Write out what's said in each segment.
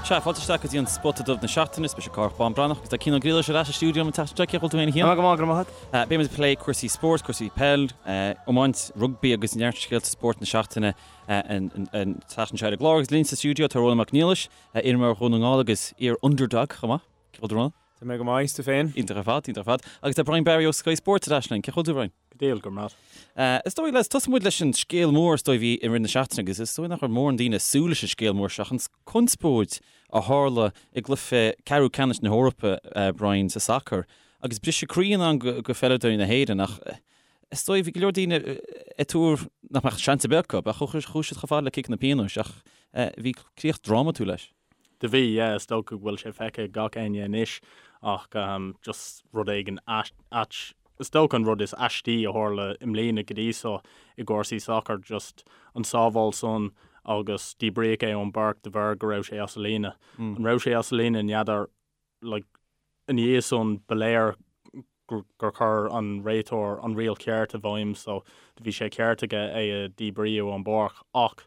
Sea, fáilte isteach go dtí an Spota Dubh na seachtaine, is mise Cárthach Bán Breathnach agus tá Cian Ó Griallais ar ais sa stiúideo an tseachtain seo, cén chaoi a bhfuil tú féin a Chian? Go maith, go raibh maith agat. Beidh muid ag plé cúrsaí spóirt, cúrsaí peil, iomáint, rugbaí agus neart scéalta spóirt na seachtaine an tseachtain seo ar an gclár agus linn sa stiúideo tá Rónán Mac Niallais, iarimreoir Dhún na nGall agus iar-underdog chomh maith. Cén chaoi a bhfuil tú Rónán? Tá mé go maith, is tú féin? Iontach ar fad, iontach ar fad. Agus tá Brian Barry ó Sky Sports ar ais linn. Cén chaoi a bhfuil tú Brian? Go diail, go raibh maith. Is dóigh, lads, tosóidh muid leis an scéal mór is dóigh a bhí i rith na seachtaine agus is dóigh nach raibh mórán daoine ag súil leis an scéal mór seo, an conspóid a tharla i gcluiche ceathrú ceannais na hEorpa, Brian, sa sacar agus briseadh croí in ann go pheileadóirí na hÉireann ach is dóigh bhí go leor daoine ag tuar nach mbeadh seans ar bith acu, ach chuaigh siad chomh fada le ciceanna pionóis ach bhí críoch drámatúil leis. Do bhí, yeah, is dócha go bhfuil sé feicthe ag gach éinne anois ach just rud éigin ait, is dócha an rud is aistí a tharla i mbliana go dtí so i gcúrsaí sacair, just an sábháil san agus díbríodh é ón bpáirc de bharr go raibh sé as a líne. An raibh sé as a líne, n'fheadar, like, ina dhiaidh san ba léir gur chuir an réiteoir an riail cheart i bhfeidhm so do bhí sé ceart aige é a dhíbríú ón bpáirc ach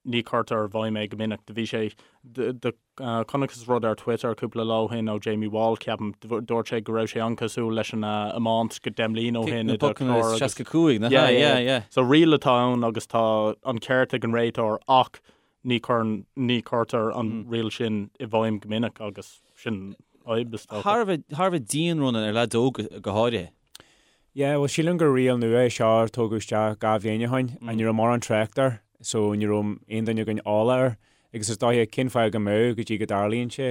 ní chuirtear i bhfeidhm é go minic. Do bhí sé, do chonacthas rud ar Twitter cúpla lá ó shin ó Jamie Wall, ceapaim, dúirt sé go raibh sé an-cosúil leis an iomáint go 10 mbliana ó shin idir Clár agus. 65, nach ea? Yeah, yeah. So riail atá ann agus tá an ceart ag an réiteoir ach ní chuireann, ní chuirtear an riail sin i bhfeidhm go minic agus sin fadhb is dócha. Thar a bheith, thar a bheith dian, Ronan, ar leaids óga go háirithe. Yeah, bhuel sílim gur riail nua é seo a tógadh isteach 2 bhliain ó shin and ní raibh mórán trácht air so ní raibh aon duine againn eolach air agus is dóiche cén fáth go mbeadh go dtí go dtarlaíonn sé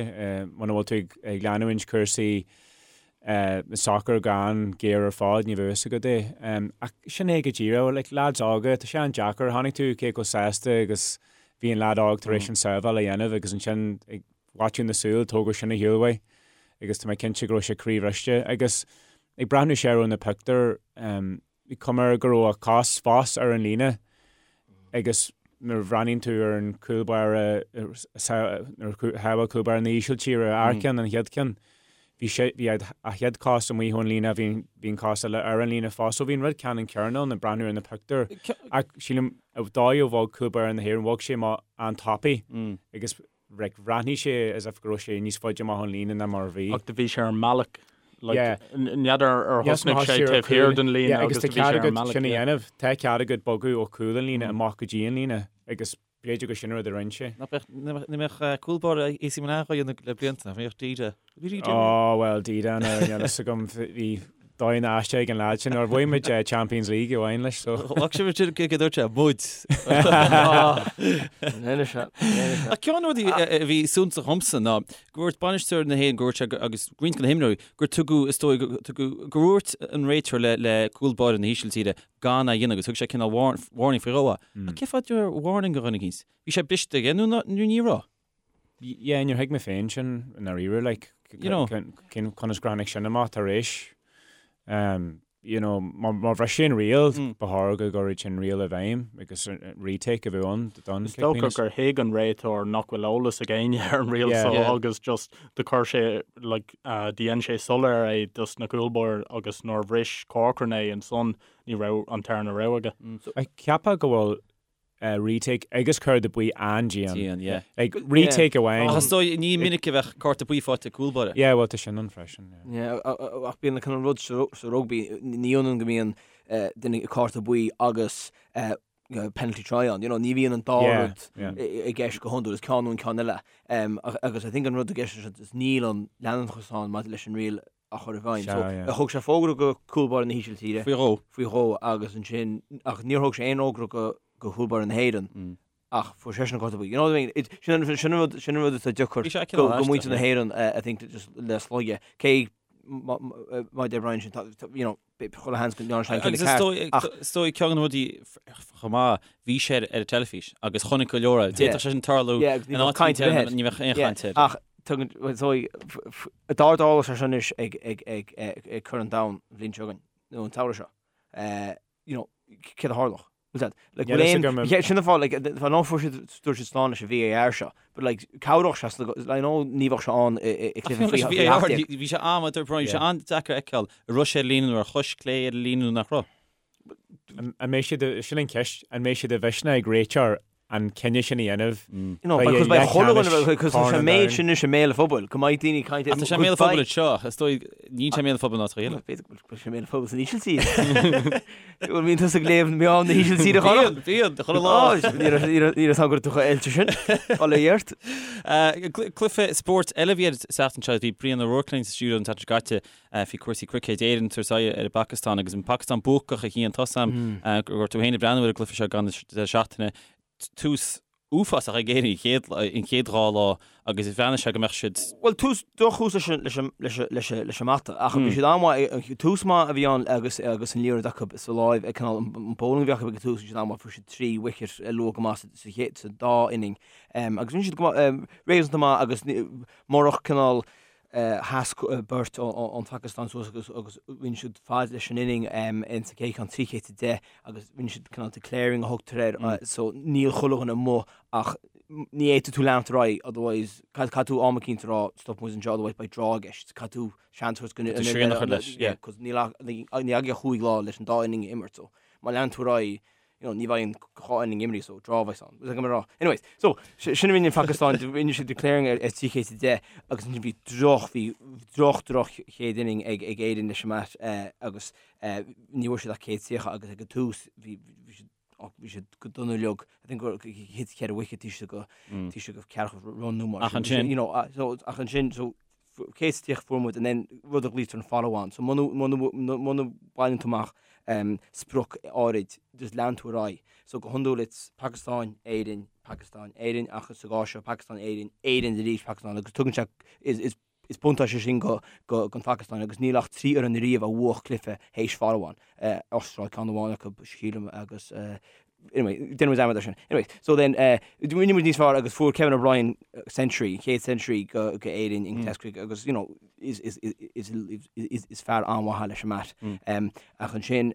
muna bhfuil tú ag leanúint cúrsaí sacair go han-ghéar ar fad ní bheadh fhios agat é. Ach sin é go díreach, like lads óga, tá sé an-deacair, chonaic tú cé chomh sásta agus bhí an lad óg tar éis an sábháil a dhéanamh agus ansin ag faiteadh na súl tógadh sin ar shiúl uaidh agus tá mé cinnte go raibh sé croíbhriste agus Ag breathnú siar ar na pictiúir, bhí cuma air go raibh a chos fós ar an líne agus nuair a bhreathnaíonn tú ar an cúl báire, nuair a shábháil cúl báire na hÍsiltíre an ceann, an chéad cheann, bhí sé, bhí a chéad chos amuigh ón líne, bhí, bhí an cos eile ar an líne fós. So bhí an rud ceannann céanna ann ag breathnú ar na pictiúir. Ach sílim, an dóigh a bhog cúl báire na hÉireann, bhog sé amach an-tapaidh agus like, bhreathnaigh sé as if go raibh sé níos faide amach ón líne ná mar a bhí. Ach do bhí sé ar an mbealach, like, Yeah. n'fheadar ar thosnaigh sé taobh thiar den líne Yeah, agus agus tá do bhí sé cead ar an agat mbealach, sin a yeah. dhéanamh. Tá cead agat bogadh ó chúl an líne amach go dtí an líne agus b'fhéidir gur sin an rud a rinne sé. Nach mbeadh, ní mbeadh cúl báire AC Milan á dhéanamh le blianta, nach mbeadh Dida. Bhí Dida. Ó, bhuel, Dida, níl a fhios agam, bhí dóigh na aisteach ag an leaid sin, nuair a bhuaigh muid Champions League amháin leis, so. Ghlac sé sin go dúirt sé, muid. Ach ceann de na rudaí a bhí suntasach dhomsa ná go dúirt bainisteoir na hÉireann, go dúirt sé agus roinnt de na himreoirí, gur tugadh, is dóigh, gur dhúirt an réiteoir le le cúl báire na hÍsiltíre gan é a dhéanamh agus thug sé cineál warning faoi dhó. Ach cén fáth a warning do dhuine eicínt? Bhí sé briste aige nó ní raibh? Yeah, níor thuig mé féin sin i ndáiríre, like, You know. cén, conas gur tháinig sin amach tar éis, um, you know, má, má bhris sé an riail, Mm. ba chóir go gcuirfeadh sin riail i bhfeidhm agus retake a bheith ann don Is dócha gur thuig an réiteoir nach bhfuil eolas ag éinne ar an riail Yeah. so Yeah. agus just do chuir sé, like, uh, do dhein sé soiléir é dos na cúlbáirí agus nuair a bhris Corcoran é ansan ní raibh an tarna rogha aige. Ach cheapfá go bhfuil retake agus cárta buí an-dian. Dian, yeah. Like, retake amháin. Ach is dóigh, ní minic a bheadh cárta buí faighte ag cúl báire. Yeah, bhuel, tá sin ann freisin, yeah. Yeah, ach bíonn an cineál rud sa rugbaí, ní ionann go mbíonn duine cárta buí agus penalty try ann, you know, ní bhíonn an dá rud i gceist go hiondúil, is ceann nó an ceann eile. Agus I think an rud i gceist anseo is níl an leanúnachas ann maidir leis an riail a chur i bhfeidhm. So, thug sé fógra go cúl báire na hÍsiltíre. Faoi dhó. Faoi dhó agus ansin, ach níor thug sé aon fhógra go go chúl báire na hÉireann ach fuair seisean an cárta buí. You know what I mean? It, sin an, sin an rud, sin an rud atá deacair go, go muintir na hÉireann, I think, just le slogadh. Cé má deir Brian sin, you know, chuile sheans go ndearna sé an cinneadh ceart. Ach is dóigh ceann de na rudaí chomh maith, bhí sé ar an teilifís agus chonaic go leor é. D'fhéadfadh sé sin tarlú in áit éigin, ní bheadh aon chaint air. Ach tugann, is dóigh, dá dtarlódh sé sin anois ag ag ag ag Corn an Domhain an bhliain seo chugainn, nó an tsamhradh seo, you know, céard a tharlódh? Bhfuil that, like, bhfuil aon, sin an fáth, like, fá ná fuair siad, dúirt siad slán leis an VAR seo, but like, cabhródh sé, I know ní bheadh sé ann i gcluiche faoi VAR, bhí sé am, bhí sé an-deacair a fheiceáil, an raibh sé ar líne nó ar chois clé ar an líne nó nach raibh. An mbeidh siad, sin an cheist, an mbeidh sé de mhisneach ag réiteoir. an cinneadh sin a dhéanamh. You know, because beidh chuile dhuine, because tá sé an méid sin anois i mbéal an phobail, go mbeidh daoine ag caint. Ach tá sé i mbéal an phobail anseo, is dóigh, níl sé i mbéal an phobail in áiteacha eile. B'fhéidir go bhfuil sé i mbéal an phobail san Ísiltír. Bhfuil mbíonn tusa ag léamh meáin na hÍsiltíre, a Chonradh? Bíonn, bíonn, chuile lá. Ní raibh a fhios agam go raibh tú chomh oilte sin. Bail ó Dhia ort. Cluiche spóirt eile a bhí ar an tseachtain seo, bhí Brian O'Rourke linn sa stiúideo an tseachtain seo caite faoi cúrsaí cruicéid Éireann ag tabhairt aghaidh ar an bPacastáin agus an Phacastáin buacach a Chian tá a fhios agam go raibh tú féin ag breathnú ar an gcluiche seo ag an deireadh seachtaine. Tús uafásach ag Éirinn an chéad dhá lá agus bhreathnaigh sé go mbeadh siad. Bhuel, tús, drochthús leis an, leis an, leis an, leis an, leis an mbata ach bhí siad an-mhaith, tús maith a bhí ann agus, agus an liathróid acu sa láimh ag cineál an bowling a bhí acu ag an tús, bhí siad an-mhaith, fuair siad trí wicket luath go maith sa, sa chéad, sa dá inning. Agus bhí siad go maith, réasúnta maith agus murach cineál sheas beirt ón Phacastáin suas agus agus rinne siad fad leis an inning in sa chéad cheann 310 agus rinne siad cineál declaring a thugtar air so níl chuile dhuine amuigh ach ní fhéadfaidh tú leanacht ar aghaidh otherwise caithfidh tú am eicínt a rá stop muid anseo otherwise beidh draw i gceist caithfidh tú seans a thabhairt go srian a chur leis yeah cos níl ach ní agaibh ach chúig lá leis an dá inning a imirt so má leanann tú ar aghaidh you know, ní bheidh an dhá inning imrithe so draw a bheas ann. Is mé rá. Anyways, so sin a rinne an Phacastáin, rinne siad declaring ar 310 agus ansin bhí droch, bhí droch, droch chéad inning ag, ag Éirinn leis an mbat eh, agus eh, ní bhfuair siad ach 130 agus ag an tús bhí, bhí siad oh, bhí siad go dona uilig. I think gur thit ceithre wicket taobh istigh go taobh istigh go ceathracha run nó mar Ach ansin. You know, uh, so, ach ansin, so 130 fuair muid and then rud a ghlaoitear an follow on. So muna bhaineann tú amach sprioc áirid just leanann tú ar aghaidh. So go hiondúil it's Pakistan, Éirinn, Pakistan, Éirinn ach sa gcás seo Pakistan, Éirinn, Éirinn arís Pakistan agus tugann sé is is buntáiste sin go go don Phacastáin agus níl ach 3 fhoireann ariamh a bhuach cluiche théis follow on. Astráil ceann amháin acu sílim agus Anyway, déanfaidh muid dearmad air sin. Anyway, so then, uh, rinne muid níos fearr agus fuair Kevin O'Brien century, an chéad century go, go Éirinn in Test cricket agus, you know, is, is, is, is, is, is fear an-mhaith leis an mbat. Um, ach ansin,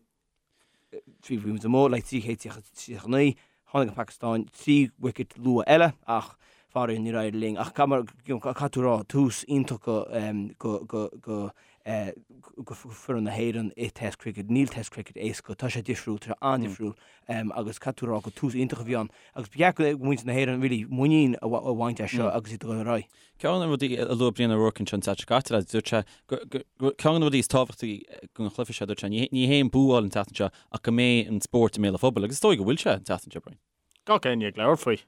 trí bhí muid amuigh le 339, tháinig an Phacastáin, 3 wicket luath eile, ach faraor níor éirigh linn. Ach caithfidh you know, caithfidh tú rá, tús iontach go, um, go, go, go, go foireann na hÉireann i Test Cricket. Níl Test Cricket éasca, tá sé difriúil, tá sé an-difriúil agus caithfidh tú a rá gur tús iontach a bhí ann agus ba cheart go muintir na hÉireann really muinín a bhaint as seo agus iad ag dul ar aghaidh. Ceann de na rudaí a luaigh Brian O'Rourke anseo an tseachtain seo caite, lads, dúirt sé gur ceann de na rudaí is tábhachtaí don chluiche seo, dúirt sé, ní hé an bua a fháil an tseachtain seo ach go mbeidh an spórt i mbéal an phobail agus is dóigh go bhfuil sé an tseachtain seo, Brian. gach éinne ag labhairt faoi,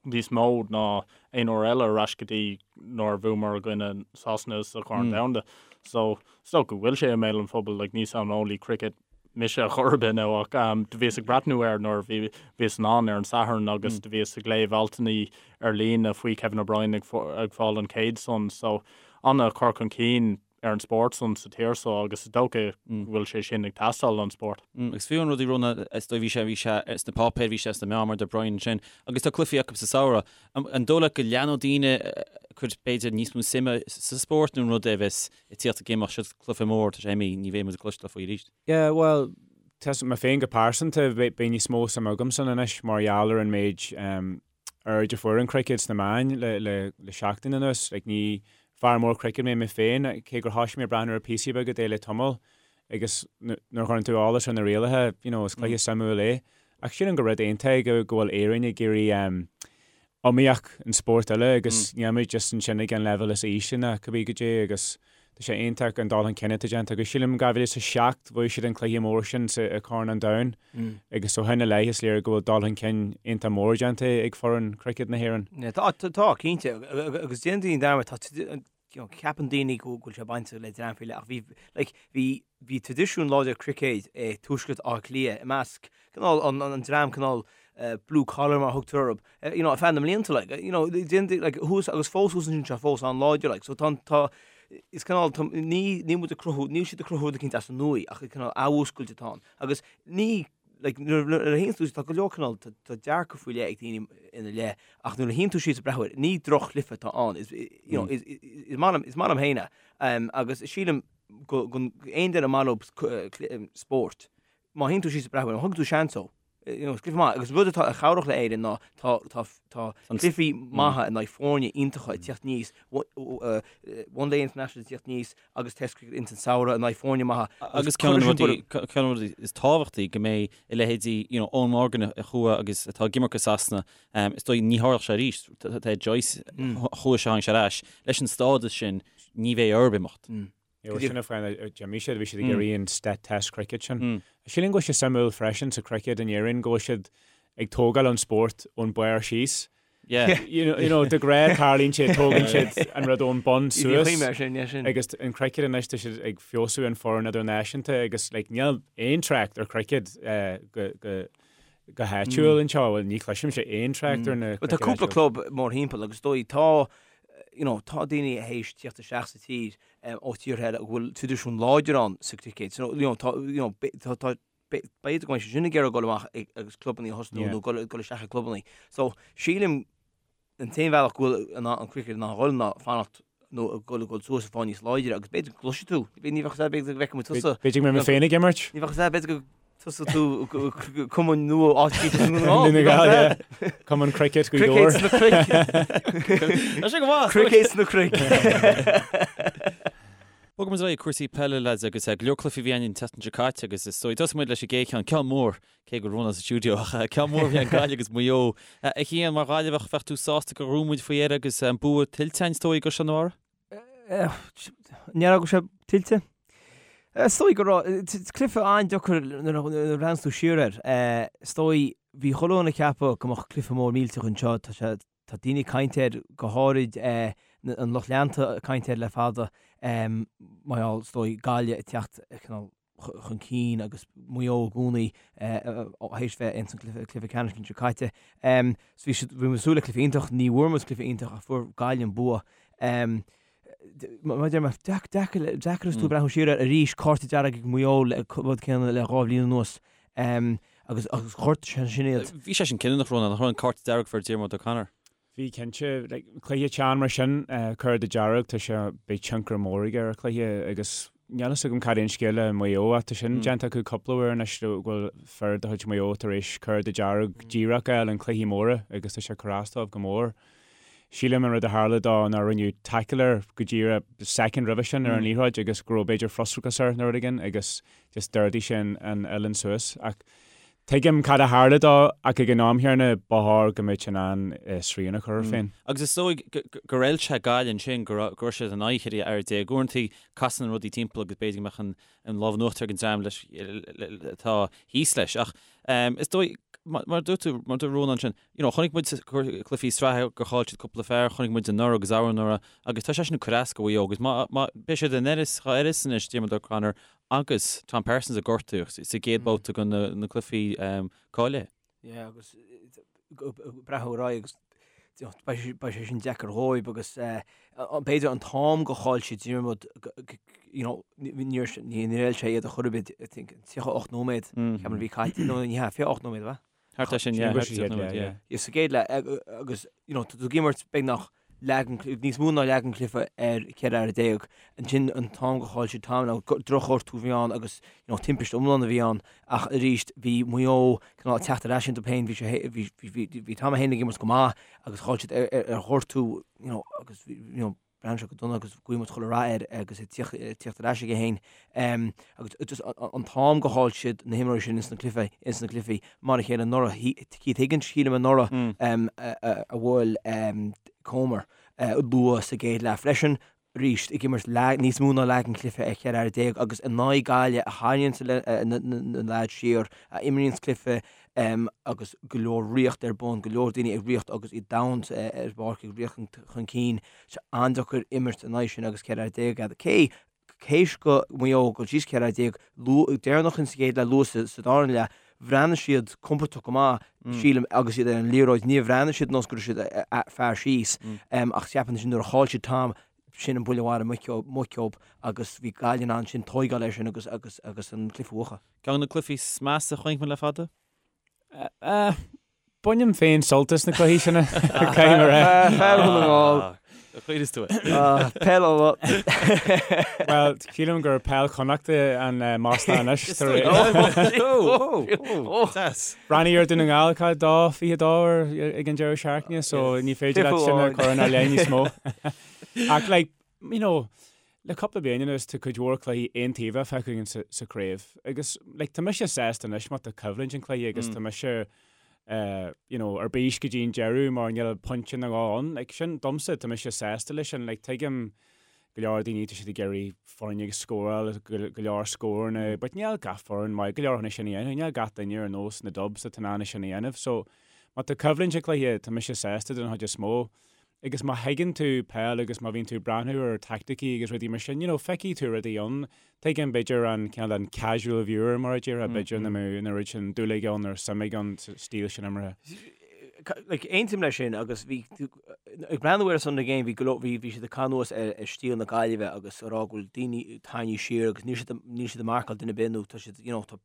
níos mó ná aon uair eile ar ais go dtí nuair a bhuamar i gcoinne Sasana sa Chorn Domhanda. So, is dócha go bhfuil sé i mbéal an phobail, like, ní saineolaí cricket mise a chor ar bith now ach do bhíos ag breathnú air nuair a bhí, bhíos in ann ar an Satharn agus do bhíos ag léamh altanna ar líne faoi Kevin O'Brien ag ag fáil an chéad san. So, an-chur chun cinn ar an spórt san sa tír so agus is dócha go bhfuil sé sin ag teastáil don spórt. Agus fiú an rud a rinne, is dóigh, bhí sé, bhí sé sna páipéir, bhí sé sna meáin mar a deir Brian ansin, agus tá cluichí acu sa samhradh. An dóigh leat go leanfaidh daoine ag cur b'fhéidir níos mó suime sa spórt nó an rud é a bheas ag tíocht ag imeacht, seo cluiche mór, tá sé imithe, ní bheidh muid ag cloisteáil faoi arís? Yeah, bhuel, tá mé féin go pearsanta, beidh níos mó suime agamsa anois mar gheall ar an méid aird a fuair an cruicéad sna meáin le seachtain anuas. Like, ní fear mór cruicéid mé mé féin, cé gur thosaigh mé ag breathnú ar píosaí beaga de le tamall, agus nuair a chuireann tú eolas ar na rialacha, you know, is cluiche suimiúil é. Ach sílim gur rud iontach é go bhfuil Éirinn ag iarraidh iomaíocht an spórt uile agus níl muid just ansin ag an leibhéal is ísle ná cibé goidé agus Tá sé iontach an dul chun cinn atá déanta agus sílim 2007 bhuaigh siad an cluiche mór sin sa i Corn an Domhain agus ó shin i leith is léir go bhfuil dul chun cinn iontach mór déanta ag foireann cruicéad na hÉireann. Tá, tá, cinnte, agus déanann daoine dearmad, tá, you know, ceapann daoine go bhfuil sé bainte le dream faoi leith ach bhí, like, bhí, bhí traidisiún láidir cruicéid i Tuaisceart Átha Cliath i measc cineál an, an dream cineál blue collar mar a thugtar orthu, you know, ar feadh na mblianta, like, you know, déan, like, thuas agus fós thuas ansin tá fós an-láidir, like, so tá, tá, is cineál, tá, ní, níl muid ag cruthú, níl siad ag cruthú rud eicínt as an nua ach cineál athmhúscailt atá ann. Agus ní, like, nuair, nuair a théann tú, tá go leor cineál, tá, tá dearcadh faoi leith ag daoine ina leith, ach nuair a théann tú síos ag breathnú air, ní droch-chluiche atá ann, is, you know, is, is maith liom, is maith liom féin é, um, agus sílim go, go, aon duine ar maith leo spórt, má théann tú síos ag breathnú air, má thugann tú seans dó. you know, is cluiche maith agus rud atá a chabhrach le Éirinn ná tá tá tá cluichí maithe in aghaidh foirne iontacha ag teacht aníos, One Day International ag teacht aníos agus Test Cricket ins an samhradh in aghaidh foirne maithe. Agus ceann de na rudaí, ceann de na rudaí is tábhachtaí go mbeidh a leithéidí, you know, Eoin Morgan a chuaigh agus atá ag imirt go Sasana, is dóigh ní tharlódh sé arís, tá Joyce, chuaigh sé tháinig sé ar ais, leis an stádas sin ní bheidh orthu imeacht. Bhuel sin an fáth a d'imigh siad, bhí siad ag iarraidh an Test Cricket sin. Sílim go bhfuil sé suimiúil freisin sa cricket in Éirinn go bhfuil siad ag tógáil an spórt ón barr síos. Yeah. You know, de ghnáth tarlaíonn sé, tógann siad an rud ón bun suas. Agus an cricket anois tá siad ag feabhsú an foireann idirnáisiúnta agus like níl aon trácht ar cricket go go go háitiúil anseo, bhuel ní chloisimse aon trácht ar na Tá cúpla club mórthimpeall agus dóigh tá you know, tá daoine théis tíocht isteach sa tír ó tíortha eile a bhfuil traidisiún láidir ann sa cricket. So, you know, tá, you know, tá, tá, b'fhéidir go mbeidh siad sin ag iarraidh dul amach agus clubanna a thosnú nó dul dul isteach i clubanna. So, sílim an t-aon bhealach go bhfuil an an cricket in ann dhul ná fanacht nó dul dul suas ag fáil níos láidre agus b'fhéidir go gcloisfidh tú, ní bheadh a fhios b'fhéidir go bhfeicfidh muid tusa. B'fhéidir go mbeidh mé féin ag imirt. Ní bheadh a fhios b'fhéidir go Tosóidh tú cumann nua áit Cumann Cricket Gaoth Dobhair. Cricket sna cnoic. Tá sé go maith. Cricket sna cnoic. Bogfaidh muid ar aghaidh cúrsaí peile lads agus go leor cluichí a bhí ann an tseachtain seo caite agus is dóigh tosóidh muid leis an gcéad cheann, ceann mór, cé go raibh Rónán sa stiúideo ach ceann mór a bhí ann Gaillimh agus Maigh Eo. A Chian, mar Ghaillimheach bheadh tú sásta gur ghnóthaigh muid faoi dheireadh agus an bua tuillte againn is dóigh i gCaisleán an Bharraigh? Ní raibh sé tuillte. Is dóigh go raibh, cluiche an-deacair nuair a bhreathnaíonn tú siar air. Is dóigh, bhí chuile dhuine ag ceapadh go mbeadh cluiche mór millteach anseo. Tá sé, tá daoine ag caint air, go háirid an lucht leanta ag caint air le fada, mar gheall, is dóigh, Gaillimh ag teacht cineál chun cinn agus Maigh Eo i gcónaí théis bheith ins an cluiche ceannais an seo caite. So bhí siad, bhí muid ag súil le cluiche iontach, ní bhfuair muid cluiche iontach ach fuair Gaillimh an bua. Mar a deir mé, deacair, deacair is tú ag breathnú siar air arís, cárta dearg ag Maigh Eo le rud céanna le 2 bhliain anuas agus agus ghortaigh sé sin iad. Bhí sé sin cinniúnach, Rónán, nach raibh an cárta dearg a fuair Diarmuid O'Connor? Bhí cinnte. Like, cluiche teann mar sin, cárta dearg, tá sé, beidh tionchar mór aige ar an chluiche agus níl fhios agam cad é an scéal le Maigh Eo ach tá sin déanta acu cúpla uair anois go bhfuil fir de chuid Mhaigh Eo tar éis cárta dearg díreach a fháil in cluichí móra agus tá sé ag cur as dóibh go mór. Sílim an rud a tharla dó ná rinneadh tackle air go díreach soicind roimhe sin ar an liathróid agus go raibh b'fhéidir frustrachas air nó rud éigin agus just d'ardaigh sé an uillinn suas ach Tuigim cad a tharla dó ach ag an am chéanna ba chóir go mbeadh sé in ann srian a chur air féin. Agus is dóigh gur fheil sé Gaillimh ansin go raibh siad in aghaidh 14 fhear. Uaireanta casann rudaí timpeall agus b'fhéidir go mbeadh an lámh in uachtar ag an dream leis atá thíos leis. Ach is dóigh, mar a dúirt tú, mar a dúirt Rónán ansin, you know, chonaic muid cluichí sraithe gur chaill siad cúpla fear, chonaic muid anuraidh agus arú-anuraidh agus tá sé sin ag cur as do Mhaigh Eo agus má, má, beidh siad in uireasa, dhá uireasa anois Diarmuid O'Connor agus Tom Parsons a gortaíodh sa gcéad babhta de na cluichí cáilithe. Yeah, agus breathnú ar aghaidh agus beidh sé sin deacair dhóibh agus b'fhéidir an t-am go chaill siad Diarmuid you know, níor fheil sé iad ar chor ar bith, I think, 38 nóiméad, ceapaim a bhí caite, nó ní hea, 28 nóiméad, ab ea? Thart ar sin, yeah, thart ar sin, yeah. Yeah, sa gcéad leath, agus, you know, tá tú ag imirt beagnach leath den, níos mó ná leath den chluiche ar 14 fhear. Ansin an t-am go chaill siad Tom, now drochghortú a bhí ann agus, you know, timpiste iomlán a bhí ann ach arís bhí Maigh Eo cineál ag teacht ar ais iontu féin, bhí sé, bhí, bhí, bhí Tom féin ag imirt go maith agus chaill siad ar, ar, ar ghortú, you know, agus bhí, you know, Bhreathnaigh sé go dona agus guím chuile rath air agus é ag tíocht ar ais aige féin. Agus just an t-am go chaill siad na himreoirí sin ins na cluichí, ins na cluichí mar a chéile anuraidh. Keith Higgins, sílim anuraidh a bhuail Comer luath sa gcéad leath freisin. Arís ag imirt níos mó ná leath den chluiche ar 14 fhear agus in aghaidh Gaillimh a tharraingíonns na leaids siar, a imríonns cluiche agus go leor ritheacht ar bun, go leor daoine ag ritheacht agus iad domhain ar an bpáirc ag ritheacht chun cinn. Sé an-deacair imirt in aghaidh sin agus 14 fhear agat. Cé théis do Mhaigh Eo dul síos 14 fhear, luath, deireanach in sa gcéad leath, luath sa darna leath, bhreathnaigh siad compordach go maith, sílim, agus iad ar an liathróid. Níor bhreathnaigh siad nós go raibh siad fear síos, ach ceapaim ansin nuair a chaill siad Tom, sin an buille mharaithe muice dóibh agus bhí Gaillimh in ann sin tóigeáil air sin agus agus agus an cluiche a bhuachan. Ceann de na cluichí is measa a chonaic muid le fada? Bainim féin sult as na cluichí sin, caithfidh mé a rá. Fear Dhún na nGall. Chuireas tú é. Peil Uladh. Bhuel, sílim gur peil Chonnachta an masla anois. Breathnaigh ar Dún na nGall cá 2-22 ag an deireadh seachtaine, so ní féidir leat sin a chur inár leith níos mó. Ach like, you know, le cúpla bliain anuas tá cuid mhór cluichí aontaobhacha feicthe againn sa chraobh agus like tá mise sásta anois má tá coimhlint an cluiche agus tá mise you know, ar bís go dtí an deireadh mar níl pointe nó dhó ann. Like, sin, domsa, tá mise sásta leis sin. Like, tuigim go leor daoine, tá siad ag iarraidh foirne ag scóráil, go leor scóranna, but níl gach foireann maith go leor chun é sin a dhéanamh. Níl gach duine ar nós na Dubs atá in ann é sin a dhéanamh. So, má tá coimhlint ag cluiche, tá mise sásta den chuid is mó. Agus má thuigeann tú peil agus má bhíonn tú ag breathnú ar taicticí agus rudaí mar sin, you know, feicfidh tú rudaí ann. Tuigim, b'fhéidir, an cineál an casual viewer, mar a déarfá, b'fhéidir nach mbeadh an oiread sin dúil aige ann nó suim aige ann sa stíl sin imeartha. Like, aontaím leis sin agus bhí, ag breathnú ar Sunday Game, bhí go leor, bhí, bhí siad ag cur anuas ar, ar stíl na Gaillimhe agus ag rá go bhfuil daoine tarraingthe siar agus níl siad, níl siad ag marcáil duine ar bith nó tá siad, you know, tá,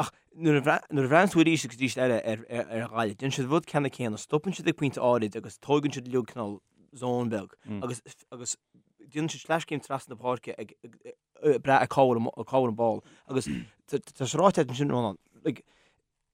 ach Nuair a bhreathnaíonn tú arís agus arís eile ar Ghaillimh, déanann siad an rud ceannann céanna, stopann siad ag pointe áirid agus tóigeann siad uilig cineál zone beag agus agus déanann siad sleaschéim trasna na páirce ag brath ar cá bhfuil cá bhfuil an ball agus tá sé ráite ansin Rónán, like,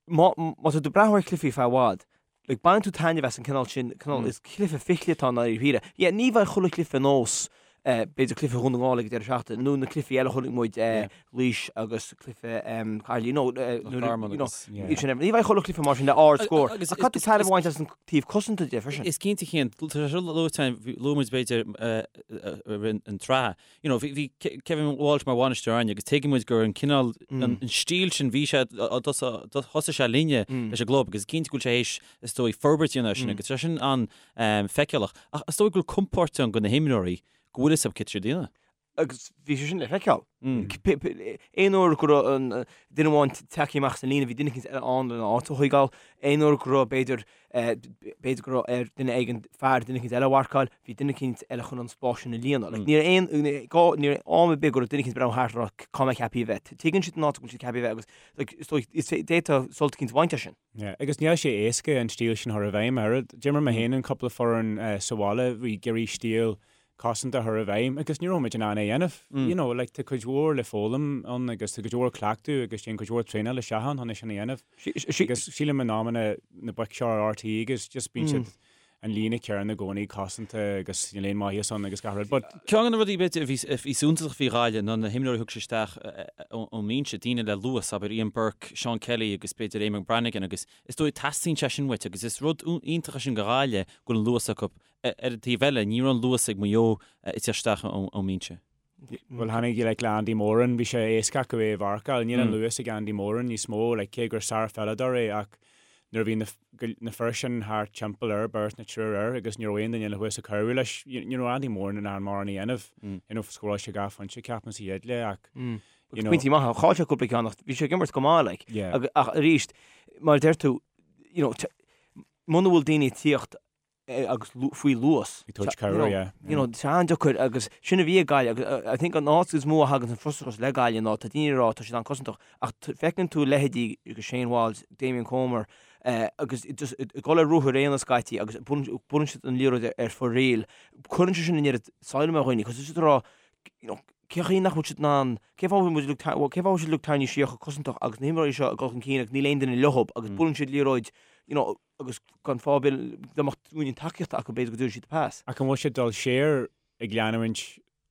má má tá tú ag breathnú ar chluichí feadh i bhfad, like, baineann tú taitneamh as an cineál sin, cineál, is cluiche fichille atá i ndáiríre. Yeah, ní bheidh chuile chluiche ar nós, eh, b'fhéidir cluiche Dhún na nGall ag an deireadh seachtaine, nó na cluichí eile a chonaic muid, eh, Laois agus cluiche, em, Caerloyne, you know, eh, Loch nuair a- Garman you know, agus- yeah. iad sin, ní bheidh chuile chluiche mar sin le ard-scór. Agus Ach caithfidh tú taitneamh a bhaint as an taobh cosanta de freisin. Is cinnte Cian, tá sé seo luaite, luaigh muid b'fhéidir, eh, eh, eh, an tsraith. You know, bhí, bhí Kevin Walsh mar bhainisteoir againne agus tuigeann muid gur an cineál, an stíl sin, bhí sé, thosaigh sé linne leis an gclub agus is cinnte go bhfuil sé théis, is dóigh, forbairt a dhéanamh air sin agus tá sé sin an-fheiceálach. Ach is dóigh go bhfuil compord ann do na himreoirí go bhfuil fhios acu cad tá siad a dhéanamh. Agus bhí sé sin le feiceáil. Aon uair go raibh an duine amháin tagtha amach as an líne, bhí duine eicínt eile ann lena áit a thógáil. Aon uair go raibh, b'fhéidir, b'fhéidir go raibh ar duine éigin fear duine eicínt eile a mharcáil, bhí duine eicínt eile chun an spás sin a líonadh. Like, ní raibh aon, gá, ní raibh am ar bith go raibh duine eicínt ag breathnú thart ag rá cá mbeidh ceaptha a bheith. Tuigeann siad an áit a bhfuil siad ceaptha a bheith agus like, is dóigh, is d'fhéadfá sult eicínt a bhaint as sin. Yeah, agus níl sé éasca an stíl sin a chur i bhfeidhm ach oiread. D'imir mé féin in cúpla foireann sa bhaile, bhí ag iarraidh stíl cosanta a chur i bhfeidhm agus ní raibh muid in ann é a dhéanamh. You know, like, tá cuid mhór le foghlaim ann agus tá cuid mhór cleachtadh agus téann cuid mhór traenáil isteach ann chun é sin a dhéanamh. Agus sílim in amanna na boic seo ar RTÉ agus just bíonn siad an líne céanna i gcónaí cosanta agus níl aon maitheas ann agus gach rud. But. Ceann de na rudaí b'fhéidir a bhí a bhí suntasach faoi Ghaillimh ná na himreoirí a thug sé isteach ón mbinse, daoine le luas, abair Ian Burke, Seán Kelly agus b'fhéidir Eamonn Brannigan agus is dóigh teastaíonn sé sin uait agus is rud iontach é sin do Ghaillimh go bhfuil an luas acu. Ar an taobh eile, ní raibh an luas ag Maigh Eo ag teacht isteach ón mbinse. Bhuel, tháinig like le Andy Moran, bhí sé éasca acu é a mharcáil. Níl an luas ag Andy Moran níos mó, like cé gur sárpheileadóir é ach nuair a bhí na na fir sin thart timpeall air, beirt nó triúr air agus ní raibh aon duine eile thuas ag cabhrú leis, ní raibh Andy Moran in ann mórán a dhéanamh. You know, scóráil sé dhá phointe, ceapaim, sa chéad leath ach, you know. Pointí maithe, chaill sé cúpla ceann ach bhí sé ag imirt go maith, like. Yeah. Ach arís, mar a deir tú, you know, muna bhfuil daoine ag tíocht agus faoi luas. Ag tabhairt cabhair, yeah. You know, tá an-deacair agus sin a bhí ag Gaillimh agus I think an áit is mó a thagann an frustrachas le Gaillimh ná tá daoine ag rá tá siad an-cosantach ach feiceann tú leithéidí agus Shane Walsh, Damien Comer agus just ag dul ar ruathar aonair scaití agus buaileann siad an liathróid ar fóraoil. Cuireann sé sin an oiread salm ar dhaoine cos is ag rá you know, cén chaoi nach bhfuil siad in ann, cén fáth a bhfuil muid uilig, cén fáth a bhfuil siad uilig tarraingthe siar chomh cosantach agus na himreoirí seo ag dul chun cinn agus níl aon duine leob agus buaileann siad liathróid you know, agus gan fáth ar bith dá mbeadh uainnín tacaíochta acu b'fhéidir go dtabharfaidh siad pas. Ach an bhfuil siad dul siar ag leanúint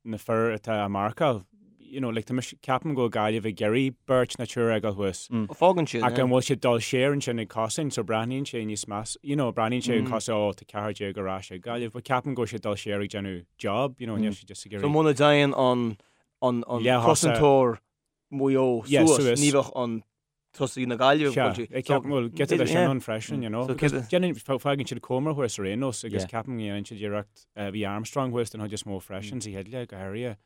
na fir atá á marcáil? You know, like, tá mise, ceapaim go bhfuil Gaillimh ag iarraidh beirt nó triúr a fhágáil thuas. Fágann siad, Ach an bhfuil siad dul siar ansin ag cosaint, so breathnaíonn sé níos meas, you know, breathnaíonn sé cosúil, oh, tá 14 ar ais ag Gaillimh, but ceapaim go bhfuil siad dul siar ag déanamh job, you know, níl siad just ag So iarraidh. muna dtéann an, an, an Leath-thosa. cosantóir Mhaigh Eo Yeah, suas, suas. ní bheadh an tosaí na Gaillimhe Sea, ag ag ceapaim, bhuel, giota de sin ann freisin, you know. Because déanann, fágann siad Comer thuas ar aon nós agus ceapaim go ndéanann siad iarracht, bhí Armstrong thuas den chuid is mó freisin sa chéad leath, go háirithe.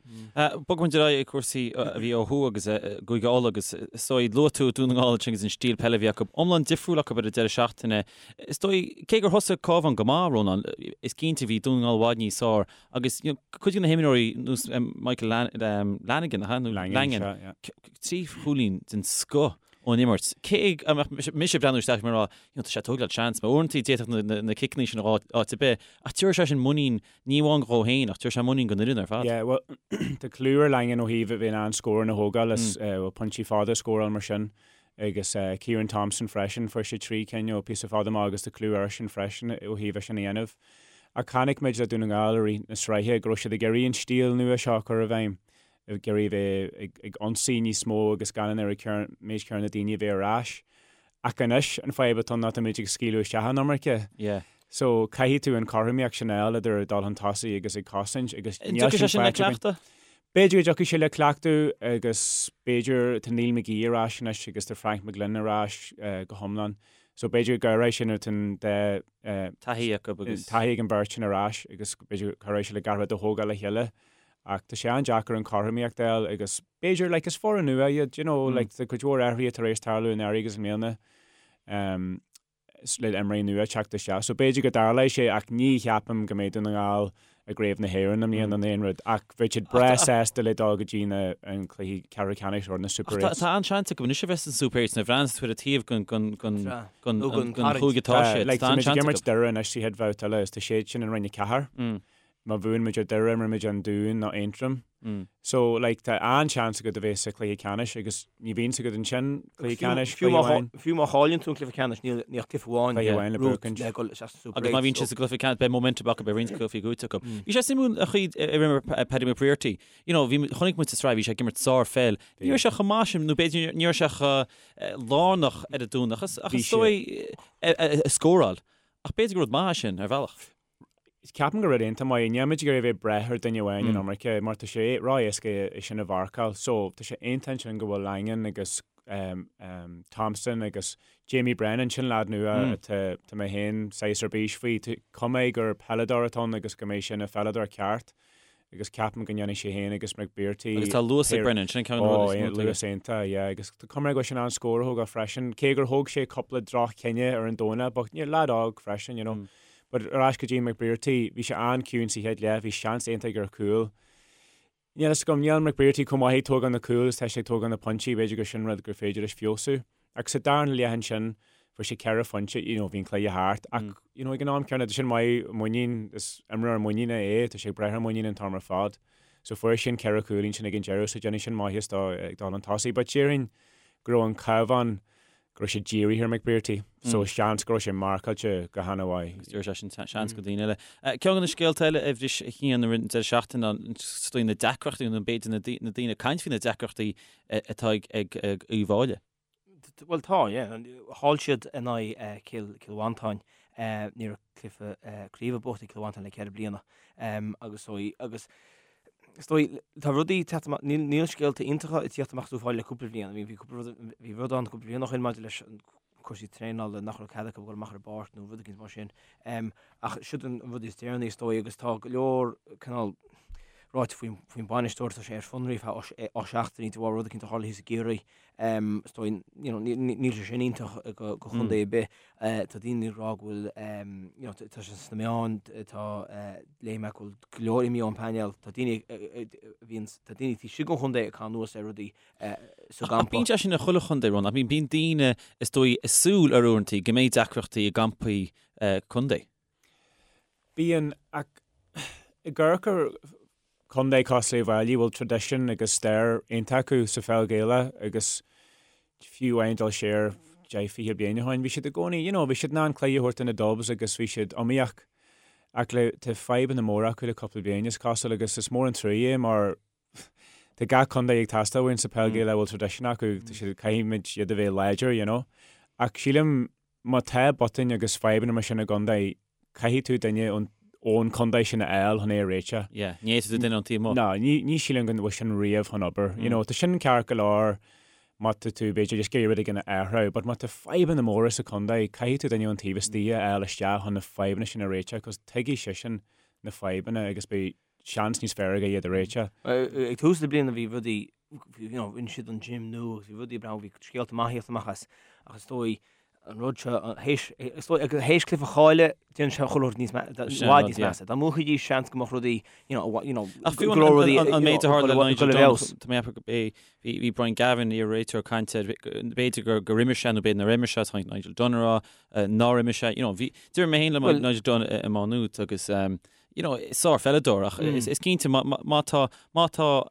Bogfaidh muid ar aghaidh ag cúrsaí a bhí ó thuaidh agus Cúige Uladh agus is dóigh, luaigh tú Dún na nGall ansin agus an stíl peile a bhí acu, iomlán difriúil acu ar an deireadh seachtaine. Is dóigh, cé gur thosaigh Cabhán go maith, Rónán, is cinnte bhí Dún na nGall i bhfad níos fearr agus you know, cuid de na himreoirí nós Michael Lanigan, nó Langan, trí chúilín den scoth. ón imirt. Cé go mbeadh mise ag breathnú isteach mar rá, you know, tá sé ag tógáil seans, mar uaireanta d'fhéadfadh na ciceanna sin a dhul áit ar bith, ach tabharfaidh sé sin muinín, ní amháin dhó féin, ach tabharfaidh sé muinín don fhoireann ar fad. Yeah, well, tá clú ar Langan ó thaobh a bheith in ann scóranna a thógáil is bhuel, pointí fada a scóráil mar sin. Agus Ciarán Thompson freisin, fuair sé 3 cinn ó píosa fada amach agus tá clú airsean freisin ó thaobh é sin a dhéanamh. Ach chonaic muid le Dún na nGall i rith na sraithe go raibh siad ag iarraidh an stíl nua seo a chur i bhfeidhm, ag iarraidh a bheith ag ionsaí níos mó agus gan an oiread méid céanna daoine a bheith ar ais. Ach anois an fadhb atá ann ná tá muid ag scaoileadh isteach an iomarca. So caithfidh tú an chothromaíocht sin a fháil idir dul chun tosaigh agus ag cosaint agus níl sin faighte againn. B'fhéidir go dtiocfaidh sé le cleachtadh agus b'fhéidir tá Neil McGee ar ais anois agus tá Frank McGlynn ar ais go hiomlán. So b'fhéidir go gcabhróidh sin nuair atá an dá taithí acu agus. taithí ag an bheirt sin ar ais agus b'fhéidir go cabhróidh sé le gach rud a thógáil le chéile. Ach tá sé an-deacair an chothromaíocht a fháil agus b'fhéidir like is foireann nua iad you know like tá cuid mhór athruithe tar éis tarlú anuraidh agus i mbliana. Um, le imreoirí nua teacht isteach. So b'fhéidir go dtarlóidh sé ach ní cheapaim go mbeidh Dún na nGall i gCraobh na hÉireann i mbliana nó aon rud ach bheadh siad breá sásta le dul go dtí na an cluichí ceathrú ceannais or na Super Eights. Tá an-seans acu anois a bheith san Super Eights nuair a bhreathnaíonn tú ar an taobh den chúige atá siad. Tá an-seans acu. Tá muid ag imirt Doire anois sa chéad bhabhta eile is tá siad sin in Roinn 4. Má bhuann muid ar Doire, imreoidh muid an Dún nó Aontroim. So, like, tá an-seans agat a bheith sa chluiche ceannais agus ní bhíonn agat ansin cluiche ceannais, cluiche amháin. Fiú má chailleann tú an cluiche ceannais, níl ach cluiche amháin Cluiche amháin le buachaint. le dhul isteach sa Super Agus má bhíonn siad sa gcluiche ceannais, beidh momentum acu, beidh roinnt cluichí buaite acu. Bhí sé suimiúil an chaoi ar imir Paddy McBrearty. You know, bhí, chonaic muid sa tsraith, bhí sé ag imirt sár-pheil. Ní raibh sé chomh maith sin, nó b'fhéidir ní raibh sé chomh lárnach ar an Domhnach, ach is dóigh a scóráil. Ach b'fhéidir gur rud maith é sin, ar bhealach. Ceapaim gur rud iontach maith é. Níl muid ag iarraidh a bheith ag brath ar duine amháin an iomarca mar tá sé ró-éasca é sin a mharcáil. So tá sé iontach ansin go bhfuil Langan agus Thompson agus Jamie Brennan, sin leaid nua atá tá mé féin saghas ar bís faoi. Tá cuma air gur peileadóir atá ann agus go mbeidh sé ina pheileadóir ceart. agus ceapaim go ndéanfaidh sé féin agus McBrearty Agus tá luas ag Brennan, sin ceann de na rudaí is mó atá aige. Luas iontach, yeah, agus tá cuma air go bhfuil sé in ann scór a thógáil freisin, cé gur thóg sé cúpla droch-chinneadh ar an Domhnach, but ní leaid óg freisin, you know. But ar ais go dtí McBrearty, bhí sé an-chiúin sa chéad leath, bhí seans iontach aige ar chúl. Níl a fhios agam, níl McBrearty chomh maith ag tógáil na cúl is tá sé ag tógáil na pointí, b'fhéidir gur sin rud gur féidir leis feabhsú. Ach sa darna leath ansin, fuair sé 4 phointe, you know, bhí an cluiche thart, ach, you know, ag an am céanna, tá sin maith, muinín, is imreoir muiníne é, tá sé ag brath ar muinín an t-am ar fad. So fuair sé an 4 chúilín sin ag an deireadh, so déanfaidh sin maitheas dó ag dul chun tosaigh. But déarfainn go raibh an Cabhán, go raibh sé dírithe ar McBrearty, so seans go raibh sé marcáilte go han-mhaith. Agus tabharfaidh sé sin seans go daoine eile. Ceann de na scéalta eile a bhris a Chian i rith an deireadh seachtaine ná is dóigh na deacrachtaí, nó b'fhéidir na daoine ag caint faoi na deacrachtaí atá ag Uíbh Fhailí. Bhuel tá, yeah. Chaill siad in aghaidh Cill Mhantáin. Ní raibh cluiche craoibhe buachta ag Cill Mhantáin le 4 bliana. Agus agus is dóigh tá rudaí ag teacht amach, níl scéalta iontacha ag tíocht amach as Uíbh Fhailí le cúpla bliain. Bhí cúpla rud, bhí rud ann cúpla bliain ó shin maidir leis an cúrsaí traenála nach raibh cead acu dul amach ar an bpáirc nó rud éicint mar sin. Ach siod an rud is deireanaí is dóigh agus tá go leor cineál ráite faoin faoin bainisteoir tá sé ar fionraí feadh 8 seachtainí de bharr rud éicint a tharla thíos i gCiarraí. Is dóigh you know níl sé sin iontach go go chontae ar bith. Tá daoine ag rá go bhfuil you know tá sé sna meáin tá léigh mé go bhfuil go leor imithe ón bpainéal. Tá daoine a bhíonn tá daoine taobh istigh den chontae ag caitheamh anuas ar rudaí sa gcampa. Bíonn sé sin i chuile chontae, Ron, ach bíonn daoine, is dóigh, ag súil ar uaireanta go mbeidh deacrachtaí i gcampaí contae. Bíonn, ach ag amharc ar chontae cosúil le Uíbh Fhailí, bhfuil traidisiún agus stair iontach acu sa pheil Ghaelach agus fiú amháin dul siar 10, 20 bliain ó shin, bhí siad i gcónaí, you know, bhí siad in ann cluiche a thabhairt do na Dubs agus bhí siad iomaíoch. Ach le, tá fadhbanna móra acu le cúpla bliain, is cosúil, agus is mór an trua é mar Tá gach contae ag teastáil uainn sa peil Gaelach a bhfuil traidisiún acu, tá siad, caithfimid iad a bheith láidir, you know. Ach sílim má tá botúin agus fadhbanna mar sin i gcontae, caithfidh tú duine ón, ón contae sin a fháil chun é a réiteach. Yeah, ní fhéadfaidh tú duine ón taobh amuigh. No, ní, ní sílim go bhfuil sin riamh chun obair. You know, tá sin ceart go leor má tá tú, b'fhéidir, just ag iarraidh rud éigin a athrú, but má tá fadhbanna móra sa chontae, caithfidh tú duine ón taobh istigh a fháil isteach chun na fadhbanna sin a réiteach, cos tuigfidh seisean na fadhbanna agus beidh seans níos fearr aige iad a réiteach. Ag tús na bliana bhí rudaí, you know, rinne siad an gym nua agus bhí rudaí breá, bhí scéalta maithe ag tíocht amach as ach is dóigh. An rud seo, théis, is dóigh, théis cluiche a chailleadh, déanann sé chuile rud níos i bhfad níos measa. Dá mbuafaidís, seans go mbeadh rudaí, you know, you know, Ach fiú an, an, an méid a tharla le Nigel Dunne, tá mé ag ceapadh go b'é, bhí, bhí Brian Gavin, iar-réiteoir, ag caint air, b'fhéidir gur, gur imir sé nó b'fhéidir nár imir sé, tháinig Nigel Dunne a rá nár imir sé, you know, bhí, d'imir mé féin le Nigel Dunne i Má Nuat agus, you know, sár-pheileadóir ach is, is cinnte má, má, má tá, má tá,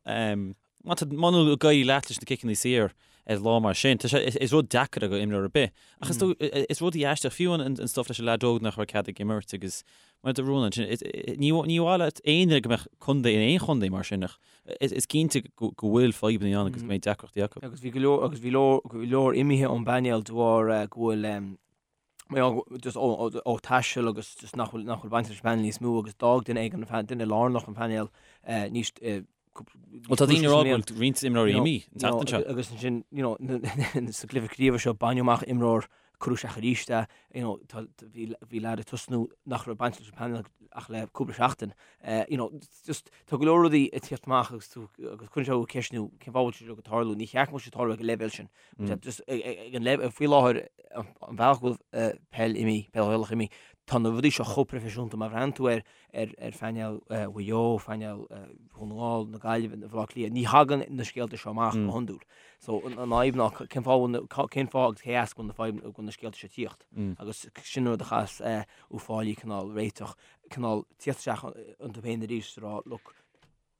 Má tá, muna bhfuil ag éirí leat leis na ciceanna saor ar lá mar sin, tá sé, is rud deacair do imreoir ar bith. Ach is dóigh, is rudaí aisteach, fiú an stuff leis an leaid óg nach raibh cead ag imirt agus mar a dúirt Rónán ansin, ní, ní mhaith leat aon duine go mbeadh contae in aon chontae mar sin ach is cinnte go bhfuil fadhbanna ann agus go mbeidh deacrachtaí acu. Agus bhí go leor, agus bhí leor, go leor imithe ón bpainéal de bharr go bhfuil, just ó taisteal agus just nach bhfuil, nach bhfuil baint leis an bpainéal níos mó agus d'fhág duine éigin an duine lárnach an painéal níos Bhuel tá daoine ag rá go bhfuil roinnt imreoirí imithe an tseachtain seo. Agus ansin, you know, sa gcluiche craoibhe seo baineadh amach imreoir cuireadh isteach arís é, you know, tá, bhí, bhí leaid ag tosnú nach raibh baint leis an bpainéal ach le cúpla seachtain. You know, just tá go leor rudaí ag tíocht amach agus tú, agus cuireann sé thú ag ceistniú cén fáth a bhfuil sé seo ag tarlú. Ní cheart go mbeadh sé ag tarlú ag an leibhéal sin. Just ag an leibhéal, faoi láthair, an bealach go bhfuil peil imithe, peil Ghaelach imithe, tá na rudaí seo chomh proifisiúnta, má bhreathnaíonn tú ar ar phainéal Mhaigh Eo, phainéal Dhún na nGall, na Gaillimhe, Bhaile Átha Cliath, ní thagann na scéalta seo amach go hiondúil. So an fhadhb ná cén fáth bhfuil, cén fáth agus cé as go bhfuil na fadhb, go bhfuil na scéalta seo ag tíocht. Agus sin an rud a chaithfeas Uíbh Fhailí cineál réiteach, cineál tíocht isteach iontu féin arís is a rá, look,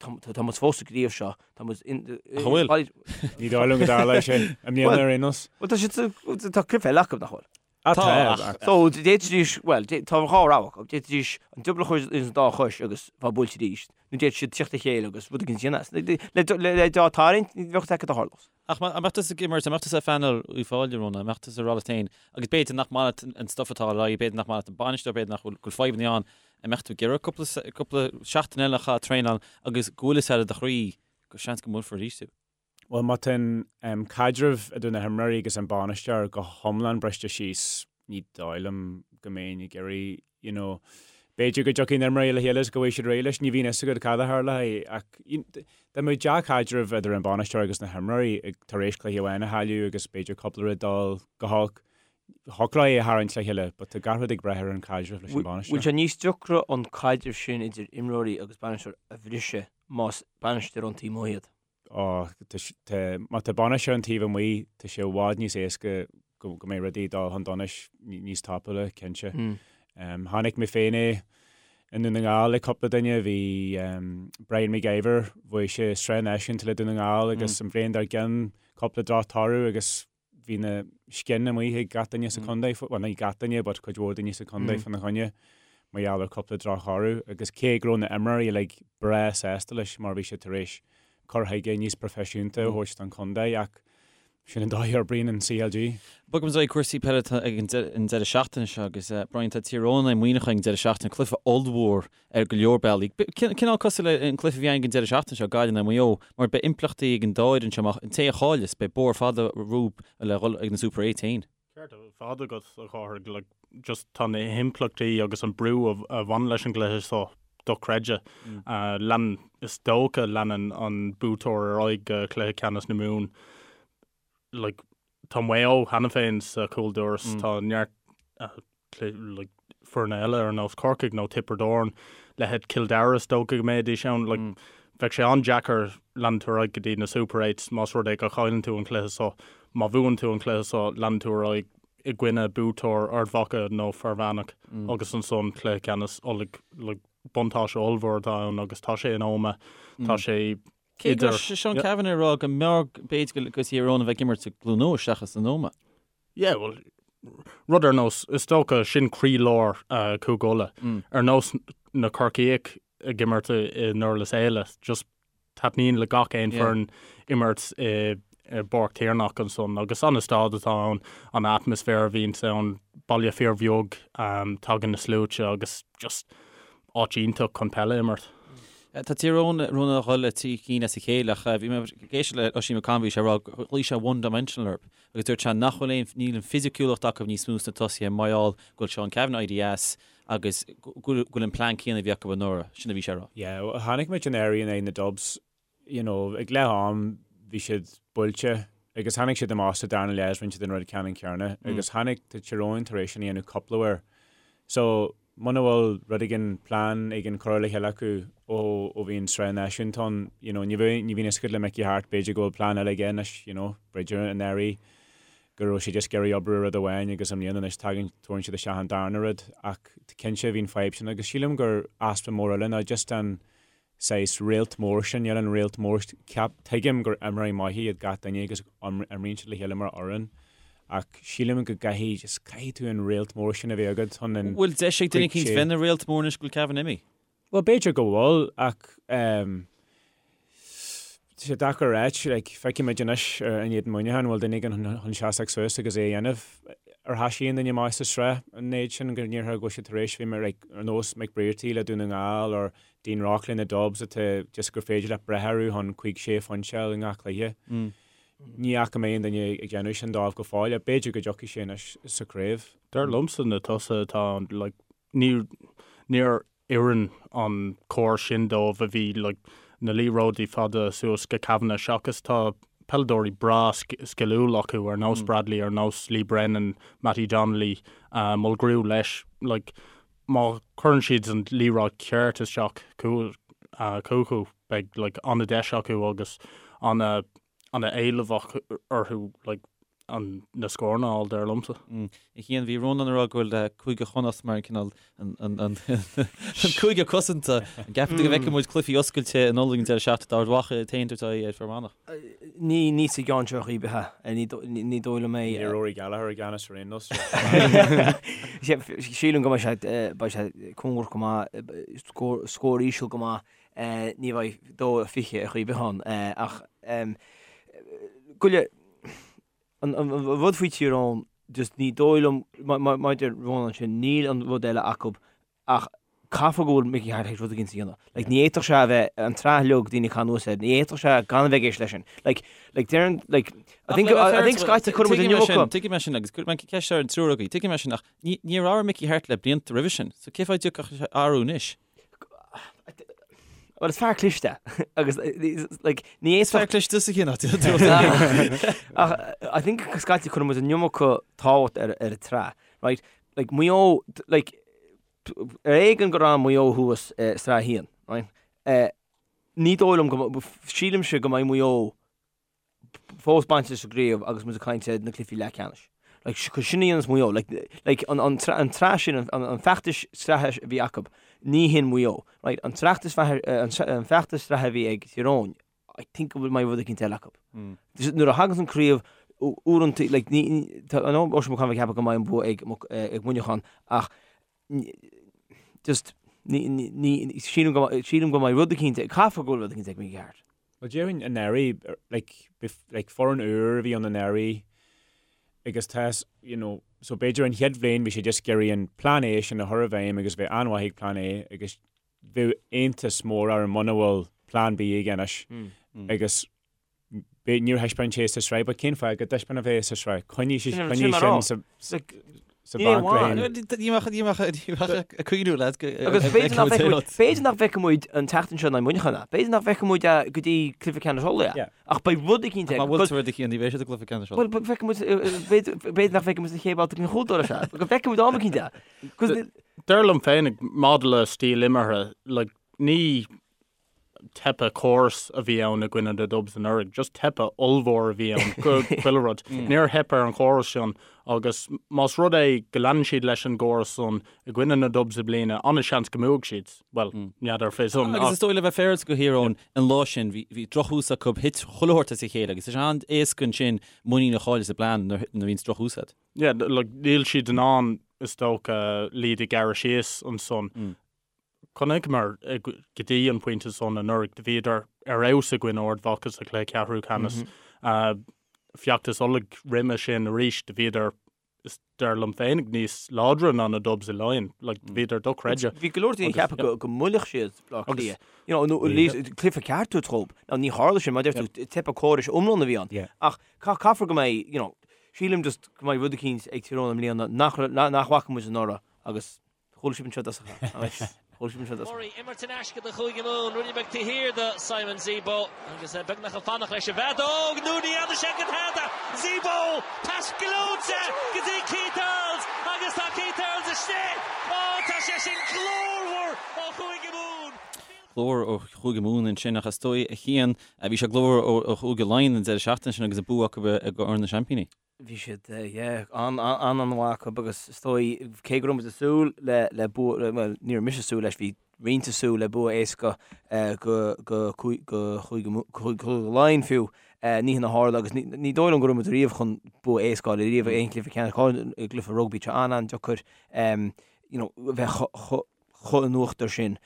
Tá muid fós sa gcraobh seo, tá muid in... Ach an bhfuil? Ní dóigh liom go dtarlóidh sé i mbliana ar aon nós. Bhuel, tá siad, tá cluiche eile acu, nach bhfuil? Ah, tá, ach... So, d'fhéadfaidís, bhuel, tá dhá rogha acu. D'fhéadfaidís an diobar a chur ins an dá chois agus bheith buailte arís, nó d'fhéadfadh siad tíocht le chéile agus rud éigin a dhéanamh as. Le dá tarraingt, ní bheadh fhios acu cad a tharlós. Ach an mbeadh tusa ag imirt, an mbeadh tusa ar phainéal Uíbh Fhailí, Rónán, an mbeadh tusa ag rá leat féin, agus b'fhéidir nach maith leat an stuff atá ar aghaidh, b'fhéidir nach maith leat an bainisteoir, b'fhéidir nach bhfuil, go bhfuil fadhbanna ann, an mbeadh tú ag iarraidh cúpla, cúpla seachtain eile a chaitheamh ag traenáil agus go bhfuil fhios agat i do chroí go seans go mbuailfear arís tú? Bhuel, má tá an caidreamh idir na himreoirí agus an bainisteoir go hiomlán briste síos, ní dóigh liom go mbeinn ag iarraidh, you know, b'fhéidir go dtiocfaidh na himreoirí le chéile is go bhfaighidh siad réidh leis, ní bhíonn fhios agat cad a tharlóidh ach dá mbeadh dea-chaidreamh idir an bainisteoir agus na himreoirí tar éis cluiche amháin a chailleadh agus b'fhéidir cúpla rud dul go holc, thiocfadh leo é a tharraingt le chéile but tá gach rud ag brath ar an chaidreamh leis an bainisteoir. Bhfuil sé níos deacra an caidreamh sin idir imreoirí agus bainisteoir a bhriseadh más bainisteoir ón taobh amuigh iad? Ó, tá, má tá bainisteoir ón taobh amuigh, tá sé i bhfad níos éasca go mbeidh rudaí ag dul chun donais níos tapúla, cinnte. Chonaic mé féin é i nDún na nGall le cúpla duine, bhí Brian McIver, bhuaigh sé sraith náisiúnta le Dún na nGall agus an bhliain dár gcionn cúpla droch-toradh agus bhí na scian amuigh ag gach duine sa chontae, bhuel ní gach duine but cuid mhór daoine sa chontae fána choinne mar gheall ar cúpla drochthoradh agus cé go raibh na imreoirí uilig breá sásta leis mar bhí sé tar éis cur chuige níos proifisiúnta a thabhairt don chontae ach sin an dóigh a oibríonn an CLG. Bogaimis ar aghaidh cúrsaí peile ag an deireadh seachtaine seo agus Brian tá Tír Eoghain in aghaidh Muineacháin ag an deireadh seachtaine, cluiche ollmhór ar go leor bealaí. Cineál cosúil le an cluiche a bhí againn ag an deireadh seachtaine seo, Gaillimh in aghaidh Mhaigh Eo, mar beidh impleachtaí ag an dá fhoireann seo amach, an té a chailleas, beidh bóthar fada rompu le dhul ag na Super Eights féin. Ceart ar fad agat, a Chárthaigh, like, just tá na himpleachtaí agus an brú a bhaineann leis an gcluiche seo dochreidte. Lean, is dócha, leanann an buaiteoir ar aghaidh go cluiche ceannais na Mumhan. Like, tá Maigh Eo cheana féin sa chúldoras, tá neart like, foirne eile ar nós Corcaigh nó Tiobraid Árann, leithéid Cill Dara is dócha go mbeidís ann. Like, bheadh sé an-deacair leanúint ar aghaidh go dtí na Super Eights más rud é go chailleann tú an cluiche seo. Má bhuann tú an cluiche seo, leanann tú ar aghaidh i gcoinne buaiteoir Ard Mhacha nó Fear Manach agus ansan cluiche ceannais Uladh. Like, buntáiste ollmhór atá ann agus tá sé in Ómaigh, tá sé Cé go raibh Seán Cavanagh ag rá go mb'fhearr b'fhéidir go Tír Eoghain a bheith ag imirt i gCluain Eois seachas in Ómaigh. Yeah, bhuel, rud ar nós, is dócha, sin croílár Chúige Uladh. Ar nós na Corcaíoch ag imirt i nDurlas Éile, just taitníonn le gach aon foireann imirt i bPáirc Tiarnach ansan agus an staid atá ann, an atmaisféar a bhíonns ann, baile fíorbheag, tagann na sluaite agus just áit iontach chun peil a imirt. Tá Tír Eoghain Rónán ag dul le 3 cinn as a chéile ach bhí mé ag éisteacht le Oisín McConville, bhí sé ag rá gur ghlaoigh sé one dimensional orthu agus dúirt sé nach bhfuil aon, níl an fisiciúlacht acu níos mó sna tosaithe mar gheall go bhfuil Seán Cavanagh éirithe as agus go bhfuil an plean céanna a bhí acu anuraidh, sin a bhí sé ag rá. Yeah, chonaic muid anuraidh in aghaidh na Dubs, you know, ag leath am bhí siad buailte. Agus tháinig siad amach sa darna leath is rinne siad an rud ceannann céanna agus tháinig tá Tír Eoghain tar éis sin a dhéanamh cúpla uair. So muna bhfuil rud éigin, plean éigin curtha le chéile acu ó ó bhí an sraith náisiúnta ann, you know, ní bheidh, ní bhíonn fhios agat le Mickey Harte, b'fhéidir go bhfuil plean eile aige anois, you know, b'fhéidir anuraidh go raibh sé just ag iarraidh oibriú ar rud amháin agus i mbliana anois tagann, tabharann siad isteach an darna rud ach cinnte bhí an fadhb sin agus sílim gur easpa mór eile ná just an saghas réalt mór sin, níl an réalt mór, ceap, tuigim gur imreoirí maithe iad gach duine agus imríonn siad le chéile mar fhoireann ach sílim go gcaithfidh, just caithfidh tú an réalt mór sin a bheith agat chun an Bhfuil deis ag duine eicínt bheith ina réalt mór anois go bhfuil Cavan imithe? Bhuel b'fhéidir go bhfuil ach ehm tá sé deacair a ráit, like feicfimid anois in éadan Muineacháin bhfuil duine éigin chun seasamh suas agus é a dhéanamh. Ar thoisigh aon duine maith sa sraith an méid sin go ndéarfá go bhfuil siad tar éis bheith mar like ar nós Mick Brearty le Dún na nGall or Dean Rock le na Dubs atá just gur féidir leat brath orthu chun cuig sé phointe a fháil i ngach cluiche. Ní fhaca mé aon duine ag déanamh sin dóibh go fóill ach b'fhéidir go dtiocfaidh sé anois sa chraobh. Dar liomsa na tosaithe atá ann, like, ní, níor oireann an córas sin dóibh a bhí, like, na liathróidí fada suas go Kavanagh seachas tá peileadóirí breá sciliúil acu ar nós Bradley, ar nós Lee Brennan, Mattie Donnelly, Mulgrew leis, like, má chuireann siad an liathróid ceart isteach chucu, beidh like an-deis acu agus an-éileamh orthu like an na scóranna a fháil, dar liomsa. A Chian, bhí Rónán ag rá go bhfuil Cúige Chonnacht mar an cineál an cúige cosanta. An gceapann tú go bhfeicfidh muid cluichí oscailte in Uladh an deireadh seachtaine d'Ard Mhacha ag tabhairt aghaidh ar Fear Manach? Ní, ní sa gceann seo ar chaoi ar bith. Ní dóigh liom é. Ní Rory Gallagher i gceannas ar aon nós. Sílim go mbeidh sé, beidh sé cóngarach go maith, scór íseal go maith. Ní bheidh 2-20 ar chaoi ar bith ann. Ach goile, an rud faoi Tír Eoghain, just ní dóigh liom, mar a deir Rónán ansin, níl an rud eile acu Ach caithfear go bhfuil Mickey Harte théis rud éigin a dhéanamh. Like, ní fhéadfadh sé a bheith, an tsraith uilig, daoine ag caitheamh anuas air, ní fhéadfadh sé gan a bheith ag éisteacht leis sin. Like, like, deireann, like, I think, I think scaití cuireann muid an iomarca. Tuigim é sin agus cuirfidh mé ceist ar an triúr agaibh. Tuigim é sin ach ní, níor athraigh Mickey Harte le blianta roimhe sin. So cén fáth a dtiocfadh athrú anois? Well, is fear cliste agus like, ní Is fear cliste sa chinneadh. Ach I think scaití cuireann muid an iomarca tábhacht ar, ar an tsraith, right? Like, Maigh Eo, like, ar éigean gur fhan Maigh Eo thuas i Sraith 1, right? Ní dóigh liom go, sílimse go mbeidh Maigh Eo fós bainte sa gcraobh agus muid ag caint ar na cluichí leathcheannais. Like, cos sin a dhéanas Maigh Eo. Like, like, an, an, an tsraith sin, an, an feachtas sraithe a bhí acu, ní hin Maigh Eo, right? An feachtas, an feachtas sraithe a bhí ag Tír Eoghain, I think go bhfuil mbeidh rud eicínt eile acu. Nuair a thaganns an craobh, uaireanta, like, ní, tá, I know Oisín Mac Con ag ceapadh go mbeidh an bua ag, ag Muineachán, ach just, ní, ní, ní, sílim go, sílim go mbeidh rud eicínt, caithfear go bhfuil rud eicínt ag Mickey Harte. Well, déarfainn anuraidh, like, like, foireann úr a bhí ann anuraidh, agus tá, you know, so b'fhéidir an chéad bhliain bhí sé just ag iarraidh an plean A sin a chur i bhfeidhm agus bheith an-mhaith ag plean A agus bheadh iontas mór orm muna bhfuil plean B aige anois agus níor thaispeáin sé sa sraith, but cén fáth go dtaispeánfadh é sa sraith? Coinnigh sin sa bhanc le Ní bheadh ag cuimhniú leat go Agus b'fhéidir nach bhfeicfidh muid an tseachtain seo in aghaidh Muineacháin é. B'fhéidir nach bhfeicfidh muid é go dtí cluiche ceannais Uladh é. Ach beidh rud eicínt aige. Má bhfuil rud eicínt, ní bheidh sé sa gcluiche ceannais Uladh. Bhuel, feicfidh muid, b'fhéidir nach bhfeicfidh muid sa chéad bhabhta den chúldoras é. Go bhfeicfidh muid am eicínt é. Dar liom féinig, maidir le stíl imeartha, like, ní teipe córas a bhí ann i gcoinne na Dubs anuraidh, just teipe ollmhór a bhí ann, go chuile rud. Níor theip ar an chóras sin agus más rud é go leanann siad leis an gcóras san i gcoinne na Dubs i mbliana, an-seans go mbuafaidh siad. Bhuel, n'fheadar fé san. Agus is dóigh le bheith féaráilte do Thír Eoghain, an lá sin, bhí, bhí drochthús acu, thit chuile shórt as a chéile agus is an-éasca ansin muinín a chailleadh sa bplean nuair a bhíonns drochthús agat. Yeah, like, níl siad in ann, is dócha, lead a ghearradh síos ansan. Chonaiceamar go dtí an pointe san anuraidh, do bhíodar ar fheabhas i gcoinne Ard Mhacha sa chluiche ceathrú ceannais. Feachtas Uladh roimhe sin arís, do bhíodar, is dar liom féinig, níos láidre ná na Dubs i Laighin. Like, do bhíodar dochreidte. Bhí go leor daoine ag ceapadh go mbuailfeadh siad Bleá Cliath. You know, nó at least cluiche ceart a thabhairt dhóibh. Now, ní tharla sin, mar a deir tú, teipe córais iomlán a bhí ann. Ach caithfear go mbeidh, you know, Sílim just go mbeidh rud eicínt ag Tír Eoghain i mbliana nach nach bhfaca muid anuraidh agus chuala sibh anseo i dtosach é. Murray, imirt in aisce do Chúige Mumhan, rudaí beag taobh thiar do Simon Zebo agus é beagnach ag fanacht leis an bhfeadóg nó ní fheadar sé go tada! Zebo! Pas gleoite go dtí Keith Earls agus tá Keith Earls istigh! Ó tá sé sin glórmhar ó Chúige Mumhan! Glór ó Chúige Mumhan ansin ach is dóigh a Chian, bhí sé glórmhar ó Chúige Laighean an deireadh seachtaine sin agus an bua acu i gCorn na Seaimpíní. Bhí siad, yeah, an-an-mhaith acu agus is dóigh, cé go raibh muid ag súil le, le bua, bhuel, ní raibh mise ag súil leis, bhí roinnt ag súil le bua éasca go, go, go Chúige Laighean fiú, ní hin a tharla agus ní, ní dóigh liom go raibh muid riamh chun bua éasca a fháil riamh i aon chluiche ceannais, go háirithe i gcluiche rugbaí, tá sé an-an-deacair, you know, bheith chomh, chomh in uachtar sin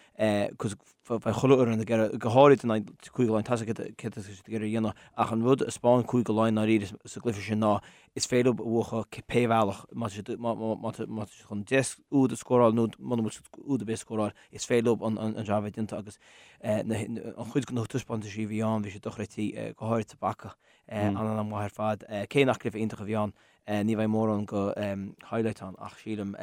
cos bheadh chuile fhoireann ag iarraidh, go háirid in aghaidh Cúige Laighean, tá a fhios acu céard atá siad ag iarraidh a dhéanamh ach an rud a 'spáin Cúige Laighean dáiríre sa gcluiche sin ná is féidir leo a bhuachan pé bhealach, má tá siad má tá siad chun 10 úd a scóráil nó muna bhfuil siad úd ar bith a scóráil, is féidir leo an jab a bheith déanta agus an chuid de na taispeántaisí a bhí ann bhí siad dochreidte, go háirid sa bpaca, an-an-mhaith ar fad. Cé nach cluiche iontach a bhí ann, ní bheidh mórán go highlights ann ach sílim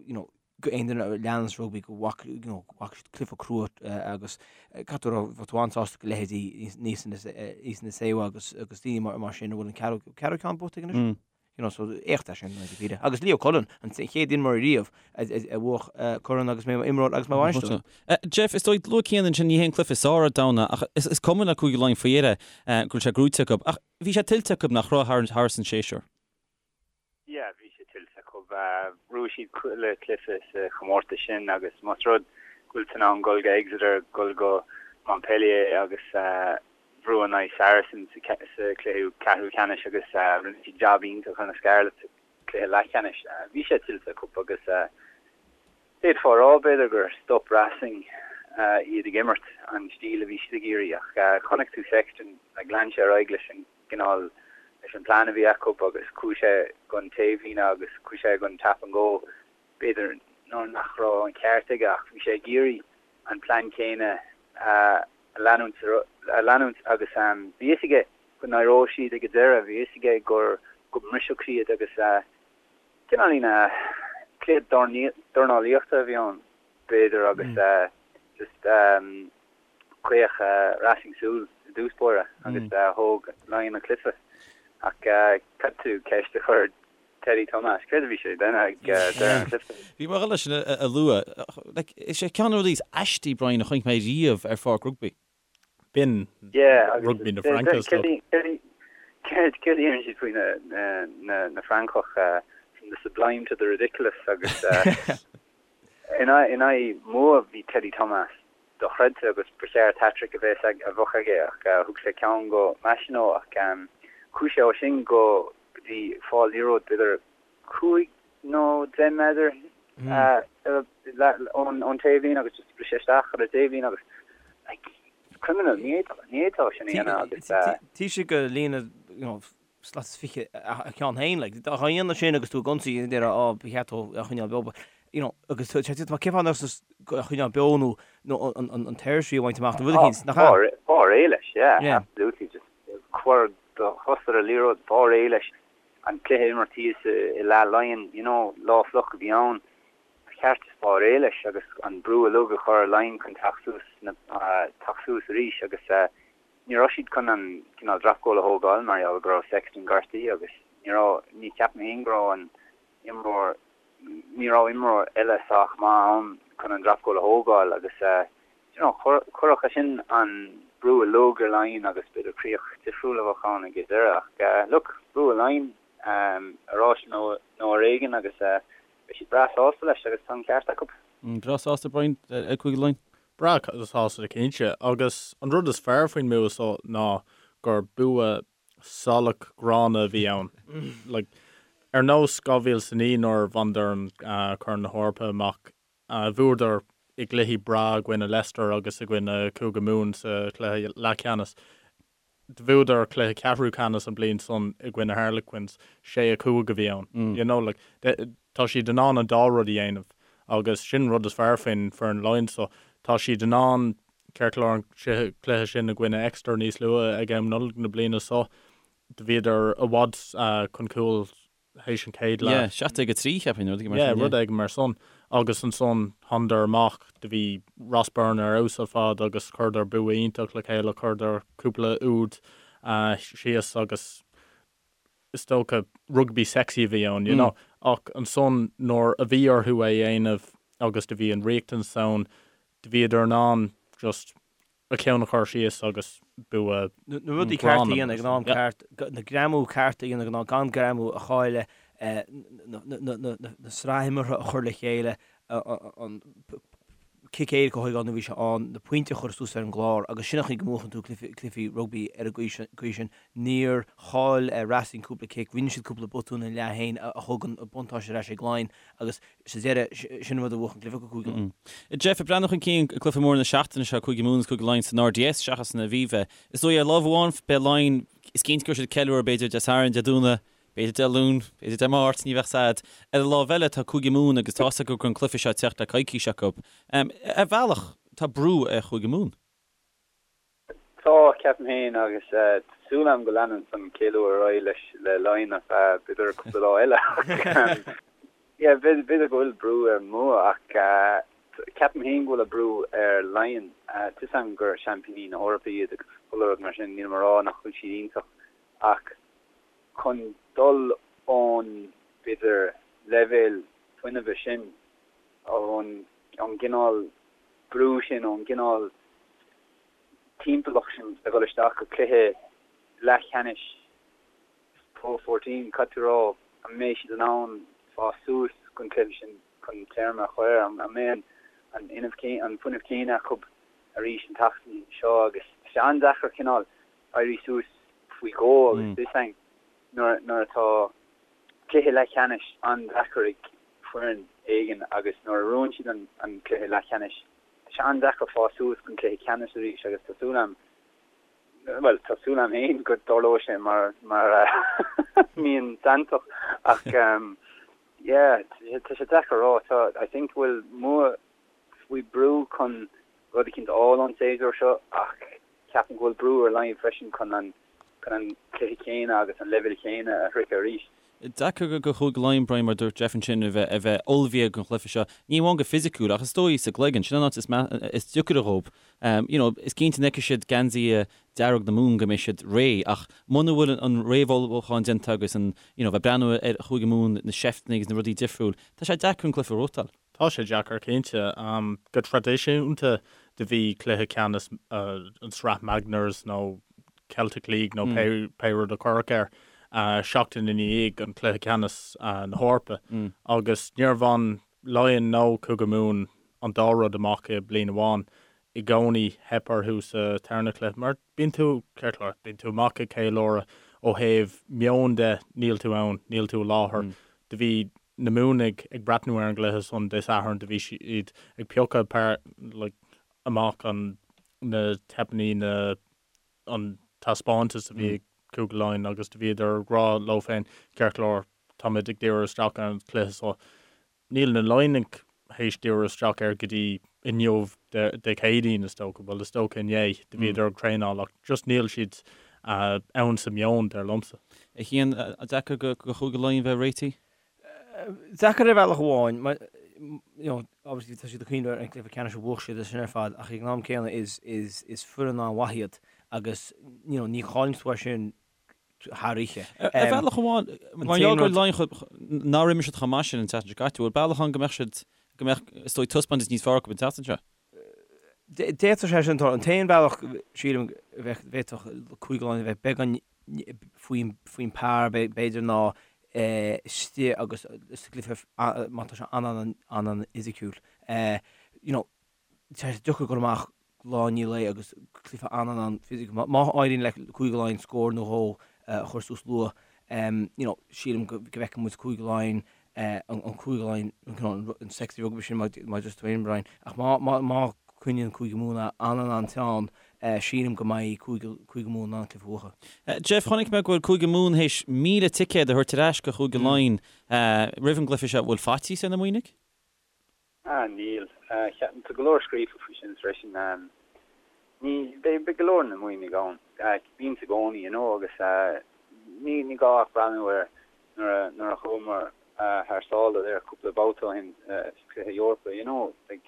you know, go aon duine a leananns rugbaí go bhfaca you know go bhfaca siad cluiche crua agus caithfidh tú a rá bheadh tú an-sásta go leithéidí Isa Nacewa agus agus daoine mar mar sin a bhfuil an ceathrú ceathrú ceann buaite aige anois. You know so éacht é sin i ndáiríre. Agus Leo Cullen an chéad imreoir riamh a a bhuach corn agus é mar imreoir agus mar bhainisteoir. Jeff, is dóigh luaigh Cian ansin ní hé an cluiche is fearr ar domhan ach is is cuma le Cúige Laighean faoi dheireadh go bhfuil sé gnóite acu ach bhí sé tuillte acu nach raibh thar thar an séasúr. Yeah, bhí sé tuillte acu. Bhuaigh siad chuile chluiche sa chomórtas sin agus más rud go bhfuil tú in ann dul go Exeter, dul go Montpellier agus brú in aghaidh Saracens sa chluiche ceathrú ceannais agus rinne siad jab iontach ar na Scarlets sa chluiche leathcheannais. Bhí sé tuillte acu agus d'fhéadfá a rá b'fhéidir gur stop Racing iad ag imirt an stíl a bhí siad ag iarraidh ach chonaic tú Sexton, like lean sé ar aghaidh leis an gcineál leis an plean a bhí acu agus chuaigh sé gon taobhlíne agus chuaigh sé gon tap and go. B'fhéidir nuair nach raibh an ceart aige ach bhí sé ag iarraidh an plean céanna a leanúint a leanúint agus bhí fhios aige go n-éireodh siad ag an deireadh, bhí fhios aige gur go mbrisfeadh siad agus cineáilín cluiche dornálaíochta a bhí ann b'fhéidir agus just Chaoch Racing súil i dtús báire agus thóg Laighin an cluiche. Ach caithfidh tú ceist a chur ar Teddy Thomas, céard a bhí sé ag déanamh ag deireadh an chluiche? Bhí mé ag dul leis sin a lua. Is é ceann de na rudaí is aistí, Brian, a chonaic mé riamh ar pháirc rugbaí. B'in rugbaí na Fraince is dócha. Céard a deireann siad faoi na Francaigh, from the sublime to the ridiculous agus in aghaidh Mumha bhí Teddy Thomas dochreidte agus ba cheart hat-trick a bheith a bheadh aige ach thug sé ceann go Machenaud ach chuaigh sé ó sin go dtí fáil liathróid b'fhéidir 5 nó 10 méadar ón taobhlíne agus just bhris sé isteach ar an taobhlíne agus like criminal ní fhéadfá sin a dhéanamh agus. Taobh istigh de líne you know slat is 20 a cheann féin, like, dá dhéanamh sin agus tú ag ionsaí, déarfá, á, ba cheart dó a choinneáil beo, but, you know, agus tá sé, cén fáth nach a choinneáil beo nó, nó an, an, an territory a bhaint amach nó rud eicínt, nach ea? Fáil réidh leis, yeah, yeah. absolutely, just cuir do chos ar an liathróid, fáil réidh leis an cluiche a imirt thíos i leath Laighean, you know, lá fliuch a bhí ann, ba cheart just fáil réidh leis agus an brú uilig a chur ar Laighin chun teacht suas, teacht suas arís agus eh, Ní raibh siad chun an cineál drop goal a thógáil mar gheall go raibh Sexton gortaithe agus ní raibh, ní cheapaim féin go raibh an imreoir, ní raibh imreoir eile sách maith ann chun an drop goal a thógáil agus you know chuirfeadh sé sin an brú uilig ar Laighin agus b'fhéidir críoch difriúil a bheadh ann ag an deireadh ach look, bhuaigh Laighin ar áis nó ar éigean agus beidh siad breá sásta leis agus tá an ceart acu. Breá sásta Brian ag Cúige Laighean? Breá sásta cinnte. Agus an rud is fearr faoin mbua seo ná gur bua salach gránna a bhí ann. Like, ar nós 2009 nuair a bhaineadar an Corn na hEorpa amach, bhuadar i gcluichí breá i gcoinne Leicester agus i gcoinne Cúige Mumhan sa chluiche leathcheannais. Bhuadar cluiche ceathrú ceannais an bliain san i gcoinne Harlequins, 6, 5 a bhí ann. You know, like, tá siad in ann an dá rud a dhéanamh agus sin an rud is fearr faoin foireann Laighean so. Tá siad in ann, ceart go leor an cluiche sin i gcoinne Exeter níos luaithe ag am Nollag na bliana so, do bhíodar i bhfad chun cúil. Théis an chéad leath. Yeah, 17-3 cheapfainn, rud éigin mar sin. Yeah, rud éigin mar san. Agus ansan thánadar amach, do bhí Ross Byrne ar fheabhas ar fad agus chuireadar bua iontach le chéile, chuireadar cúpla úd síos agus is dócha rugbaí sexy a bhí ann, you know. Ach ansan nuair a bhí orthu é a dhéanamh agus do bhí an riachtanas ann, do bhíodar in ann just a cheann a chur síos agus bua Na rudaí cearta a dhéanamh ag an am ceart, na greamú cearta a dhéanamh ag an am, gan greamú a chailleadh, na sraith imeartha a chur le chéile, an cic éirice a thógáil nuair a bhí sé ann, na pointí a chur suas ar an gclár agus sin an chaoi go mbuachann tú cluichí rugbaí ar an gcaoi sin. Níor chaill Racing cúpla cic, rinne siad cúpla botún ina leath féin a thug an buntáiste ar ais ag Laighin agus Sa deireadh, sin an rud a bhuach an cluiche do Chúige Laighean. Jeff, ag breathnú chun cinn, cluiche mór na seachtaine seo, Cúige Mumhan agus Cúige Laighean san RDS seachas san Aviva. Is dóigh ar lámh amháin beidh Laighin, is cinnte go raibh siad ag ceiliúradh b'fhéidir Dé Sathairn, Dé Domhnaigh, b'fhéidir Dé Luain, b'fhéidir Dé Máirt, ní bheadh 's a'd. Ar an lámh eile tá Cúige Mumhan agus tá's acu go raibh an cluiche seo ag teacht le coicís acu. Ar bhealach tá brú ar Chúige Mumhan. Tá, ceapaim féin, agus tá súil agam go leanann an ceiliúradh ar aghaidh leis le Laighin ar feadh b'fhéidir cúpla lá eile ach yeah b'fhéidir go bhfuil brú ar Mumha ach ceapaim féin go bhfuil an brú ar Laighin. Tá 'fhios agam gur seaimpíní na hEorpa iad agus chuile rud mar sin, nílim a rá nach bhfuil siad iontach ach chun dul ón b'fhéidir leibhéal fuinnimhe sin, ón gcineál brú sin, ón gcineál timpeallacht sin a dhul isteach go cluiche leathcheannais Pro 14, caithfidh tú a rá, an mbeidh siad in ann fás suas don chluiche sin chun téarma a chur air? An mbeidh an an fuinneamh céanna acu arís an tseachtain seo? Agus tá sé an-deacair cineál éirí suas faoi dhó agus tá 'fhios a'inn nuair nuair atá cluiche leathcheannais an-deacair ag foireann éigin agus nuair a bhuann siad an cluiche leathcheannais Tá sé an-deacair fás suas don chluiche ceannais arís agus tá súil agam, bhuel, tá súil agam féin go dtarlóidh sé mar mar mian santach ach yeah, tá sé deacair a rá. Tá, I think go bhfuil Mumha faoi brú chun rud eicínt a fháil ón séasúr seo ach ceapaim go bhfuil brú ar Laighin freisin chun an chun an cluiche céanna agus an leibhéal céanna a shroicheadh arís. Deacair do Chúige Laighean, Brian, mar a dúirt Jeff ansin, a bheith a bheith ullmhaithe don chluiche seo, ní amháin go fisiciúil ach is dóigh sa gcloigeann. Sin an áit is is deacaire dhóibh. You know, is cinnte an bhfeicfidh siad geansaithe dearg na Mumhan go mbeidh siad réidh ach muna bhfuil an réamhullmhúchán déanta agus an, you know, bheith breathnú ar Chúige Mumhan, na seifteanna agus na rudaí difriúil, tá sé deacair an cluiche a ghnóthachtáil. Tá sé deacair, cinnte. Go traidisiúnta do bhí cluiche ceannais an Sraith Magners nó Celtic League nó pé rud a cuireadh air seachtain i ndiaidh an cluiche ceannais na hEorpa agus níor bhain Laighean nó Cúige Mumhan an dá rud amach i bliain amháin. I gcónaí theip orthu sa tarna cluiche mar bíonn tú, ceart go leor, bíonn tú amach ag ceiliúradh ó thaobh meoin de, níl tú ann, níl tú i láthair. Do bhí na Muimhnigh ag breathnú ar an gcluiche san Dé Sathairn, do bhí siad ag piocadh like, amach an, na teipeanna, na, an taispeántas a bhí ag Cúige Laighean agus do bhíodar ag rá leo féin, ceart go leor, táimid ag díriú isteach ar an chluiche so. Níl na Laighnigh théis díriú isteach air go dtí inniu, Dé Céadaoin is dócha, bhuel is dócha inné, do bhíodar ag traenáil ach just níl siad ann sa meon, dar liomsa. A Chian, deacair do Chúige Laighean bheith réitithe? Deacair ar bhealach amháin, mar, you know, obviously tá siad ag cuimhneamh ar an gcluiche ceannais a bhuaigh siad sin ar fad, ach ag an am céanna is, is, is foireann an-mhaith iad agus, you know, ní chailleann tú é sin thar oíche. Ar bhealach amháin, mar gheall gur Laighin nár imir siad chomh maith sin an tseachtain seo caite, bhfuil bealach ann go mbeadh siad, go mbeadh, is dóigh, taispeántas níos fearr acu an tseachtain seo? D'fhéadfadh sé sin tarlú. An t-aon bhealach, sílim, a bheadh, bhféadfadh Cúige Laighean a bheith beagán faoin par, b'fhéidir, ná istigh agus sa gcluiche má tá sé an-an-an-fhisiciúil. You know, tá sé deacair dul amach lá i ndiaidh lae agus cluiche an-an-an-fhisiciúil. Má éiríonn le Cúige Laighean scór nó dhó a chur suas luath, you know, sílim go bhfeicfidh muid Cúige Laighean an Cúige Laighean, an sexy rugby sin mar a dúirt tú féin, Brian. Ach má, má, má coinníonn Cúige Mumhan an-an-an-teann, sílim go mbeidh Cúige, Cúige Mumhan in ann cluiche a bhuachan. Jeff, chonaic mé go bhfuil Cúige Mumhan théis 1,000 ticéad a thabhairt ar ais go Chúige Laighean roimh an gcluiche seo. Bhfuil faitíos ar na Muimhnigh? Ah, níl. Tá go leor scríofa faoi sin freisin. Ní, beidh, beidh go leor na Muimhnigh ann. Bíonn i gcónaí, you know, agus ní, ní gá ach breathnú ar. Nuair a nuair a chuamar thar sáile there cúpla babhta ó shin sa chluiche Eorpa, you know, like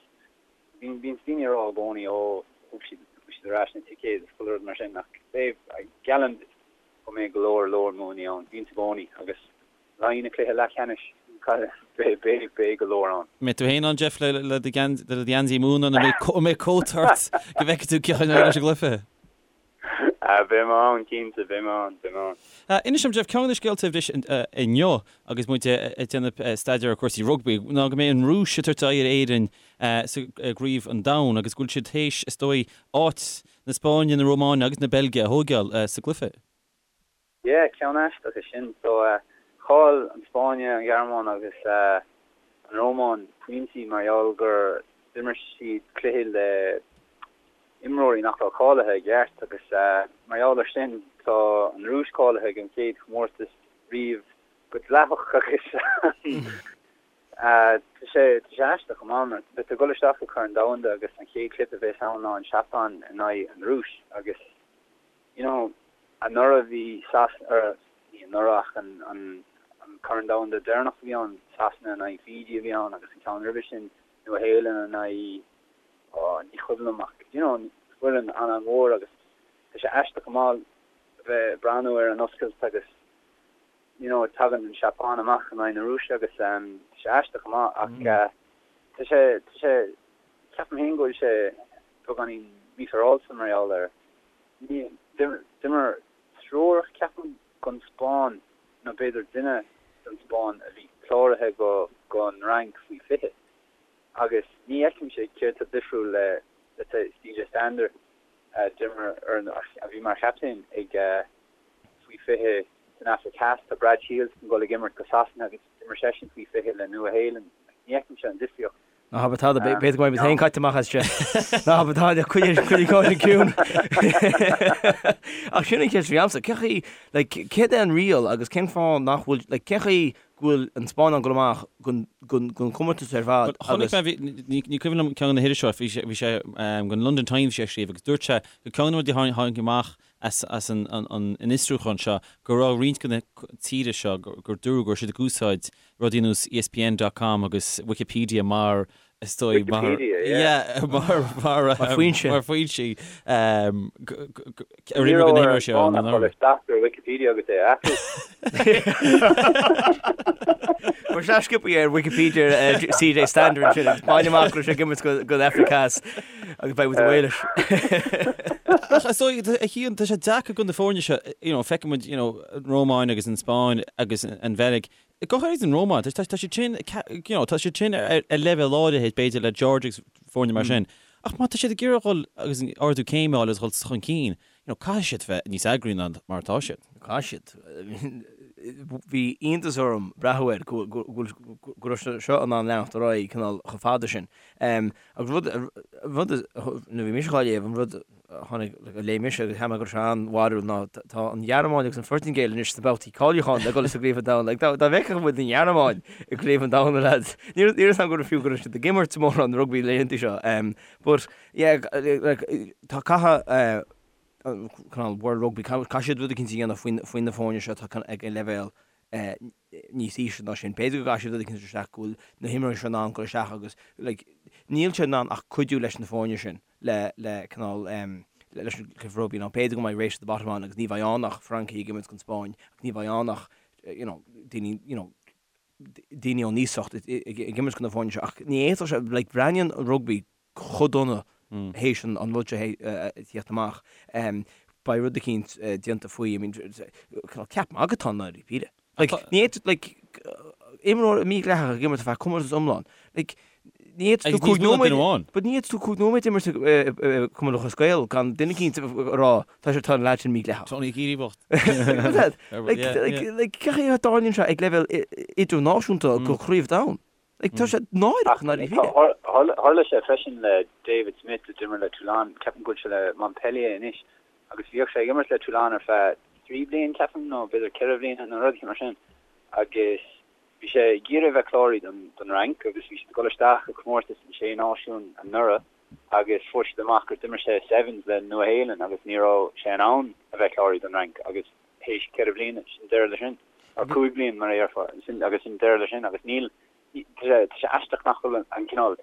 bíonn bíonn daoine ag rá i gcónaí ó thug siad thug siad ar ais na ticéid agus chuile rud mar sin ach beidh, geallaim duit go mbeidh go leor leor Muimhnigh ann, bíonn i gcónaí agus le haghaidh na cluiche leathcheannais beidh beidh beidh go leor ann. Mbeidh tú féin ann Jeff le le do le do gheansaí Mumhan an mbeidh cóta ort go bhfeicfidh tú cén chaoi leis an gcluiche? Beidh mé ann, cinnte, beidh mé ann, beidh mé ann. Inis dom, Jeff, ceann de na scéalta a bhris inniu agus muid ag déanamh staidéar ar chúrsaí rugbaí ná go mbeidh an Rúis ag tabhairt aghaidh ar Éirinn sa gCraobh an Domhain agus go bhfuil siad théis, is dóigh, áit na Spáinne, na Rómáine agus na Beilge a thóigeáil sa gcluiche. Yeah, ceann aisteach é sin. So, chaill an Spáinn, an Ghearmáin agus an Rómáin pointí mar gheall gur d'imir siad cluiche le imreoirí nach raibh cáilithe i gceart agus mar gheall ar sin tá an Rúis cáilithe ag an chéad chomórtas riamh go dleathach agus tá sé tá sé aisteach go maith mar beidh tú ag dul isteach go Corn Domhanda agus an chéad chluiche a bheas ann ná an Seapáin in aghaidh an Rúis agus you know anuraidh bhí Sas or ní anuraidh ach an an an Corn Domhanda deireanach a bhí ann Sasana in aghaidh Fiji a bhí ann agus an ceann roimhe sin Nua Shéalainn in aghaidh oh ní cuimhin liom ach you know foireann an-an-mhór agus tá sé aisteach go maith a bheith ag breathnú ar an oscailt agus you know tagann an Seapáin amach in aghaidh na Rúise agus tá sé aisteach go maith ach tá sé tá sé ceapaim féin go bhfuil sé beagáinín mífhéaráilte mar gheall ar ní d'imir triúr ceapaim don Spáinn nó b'fhéidir duine don Spáinn a bhí cláraithe go don Fhrainc faoi 20 agus ní fheicimse céard tá difriúil le let's say CJ Stander a d'imir ar a bhí mar chaptaen ag faoi 20 san Afraic Theas. Tá Brad Shields chun dul ag imirt go Sasana agus d'imir seisean faoi 20 le Nua Shéalainn. Ní fheicimse an difríocht. Ná habair tada, b'fhéidir go mbeidh muid féin caite amach as seo. Ná habair tada, coinnigh an ciúin. Ach sin an cheist a bhí agamsa, cén chaoi, like, céard é an riail agus cén fáth nach bhfuil, like, cén chaoi go bhfuil an Spáinn in ann dul amach den chomórtas ar fad agus. Chonaic mé, ní cuimhin liom ceann de na hiriseoirí, bhí sé, bhí sé don London Times bhí sé ag scríobh agus dúirt sé gur ceann de na rudaí a tháinig amach as as an an fhiosrúchán seo go raibh roinnt de na tíortha seo gur dúradh go raibh siad ag úsáid rudaí ar nós ESPN dot com agus Wikipedia mar is dóigh mar Wikipedia, yeah. yeah mar mar Mar foinse. mar foinsí ar imir go n-imreoidh sé ann an uair. Isteach ar Wikipedia agus é a athrú. Chuir sé sciobthaí ar Wikipedia CJ Stander ansin agus bain amach go raibh sé ag imirt don Afraic Theas agus beidh muid ag Wales. Ach is dóigh, a Chian, tá sé deacair do na foirne seo, you know, feiceann muid, you know, an Rómáin agus an Spáinn agus an Bheilg, go háirid an Rómáin, tá siad sin, you know, tá siad sin ar leibhéal áirithe, b'fhéidir, le Georgia agus foirne mar sin. Ach má tá siad ag iarraidh dhul agus ardú céime a fháil agus dhul chun cinn, you know, caithfidh siad bheith níos eagraí ná mar atá siad. Caithfidh siad. Bhí iontas orm breathnú air go raibh sé seo in ann leanacht ar aghaidh cineál chomh fada sin. Agus rud, rud, nuair a bhí mise dhá léamh, an rud a tháinig, a léigh mise agus cheap mé go raibh sé an-bharrúil ná tá an Ghearmáin agus an Phortaingéil anois sna babhtaí cáiliúcháin le dul sa gCraobh an Domhain. Like, dá bhfeicfeadh muid an Ghearmáin i gCraobh an Domhain, a lads. Ní raibh a fhios agam go raibh fiú go raibh siad ag imirt mórán rugbaí laethanta seo. But, yeah, like, tá caithfidh cineál World Rugby, caithfidh siad rud eicínt a dhéanamh faoi na foirne seo atá ag an leibhéal níos ísle ná sin. B'fhéidir go gcaithfidh siad rud eicínt isteach go bhfuil na himreoirí seo in ann dul isteach agus like níl siad in ann ach cuidiú leis na foirne sin le le cineál leis an cluiche rugbaí nó b'fhéidir go mbeidh race to the bottom ann agus ní bheidh ann ach Francaigh ag imirt don Spáinn agus ní bheidh ann ach you know daoine you know daoine ón iasacht ag imirt do na foirne seo ach ní fhéadfadh sé like breathnaíonn an rugbaí chomh dona théis an rud seo a theacht amach. Beidh rud eicínt déanta faoi, I mean, cineál ceap magaidh atá ann dáiríre. Like, ní fhéadfadh, like, imreoir mídhleathach ag imirt ar feadh comórtas iomlán. Like, ní fhéadfadh tú 5 nóiméad, but ní fhéadfadh tú 5 nóiméad imirt i Cumann Lúthchleas Gael gan duine eicínt a rá tá sé tá an leaid sin mídhleathach. Tony Keady bocht. Like, like, like, cén chaoi a dtarlaíonn sé ag leibhéal idirnáisiúnta go Craobh Domhain? Like, tá sé náireach, ndáiríre. Tharla sé freisin le David Smith a d'imir le Toulon, ceapaim go bhfuil sé le Montpellier anois, agus bhíodh sé ag imirt le Toulon ar feadh 3 bliain, ceapaim, nó b'fhéidir 4 bhliana nó rud mar sin, agus bhí sé ag iarraidh a bheith cláraithe don don Fhrainc agus bhí siad ag dul isteach i comórtas na Sé Náisiún anuraidh agus fuair siad amach gur d'imir sé Sevens le Nua Shéalainn agus ní raibh sé in ann a bheith cláraithe don Fhrainc agus théis 4 bhliana, sin deireadh le sin. Or 5 bliain mar a dhéarfá, sin agus sin deireadh leis sin agus níl, tá sé aisteach nach bhfuil an cineál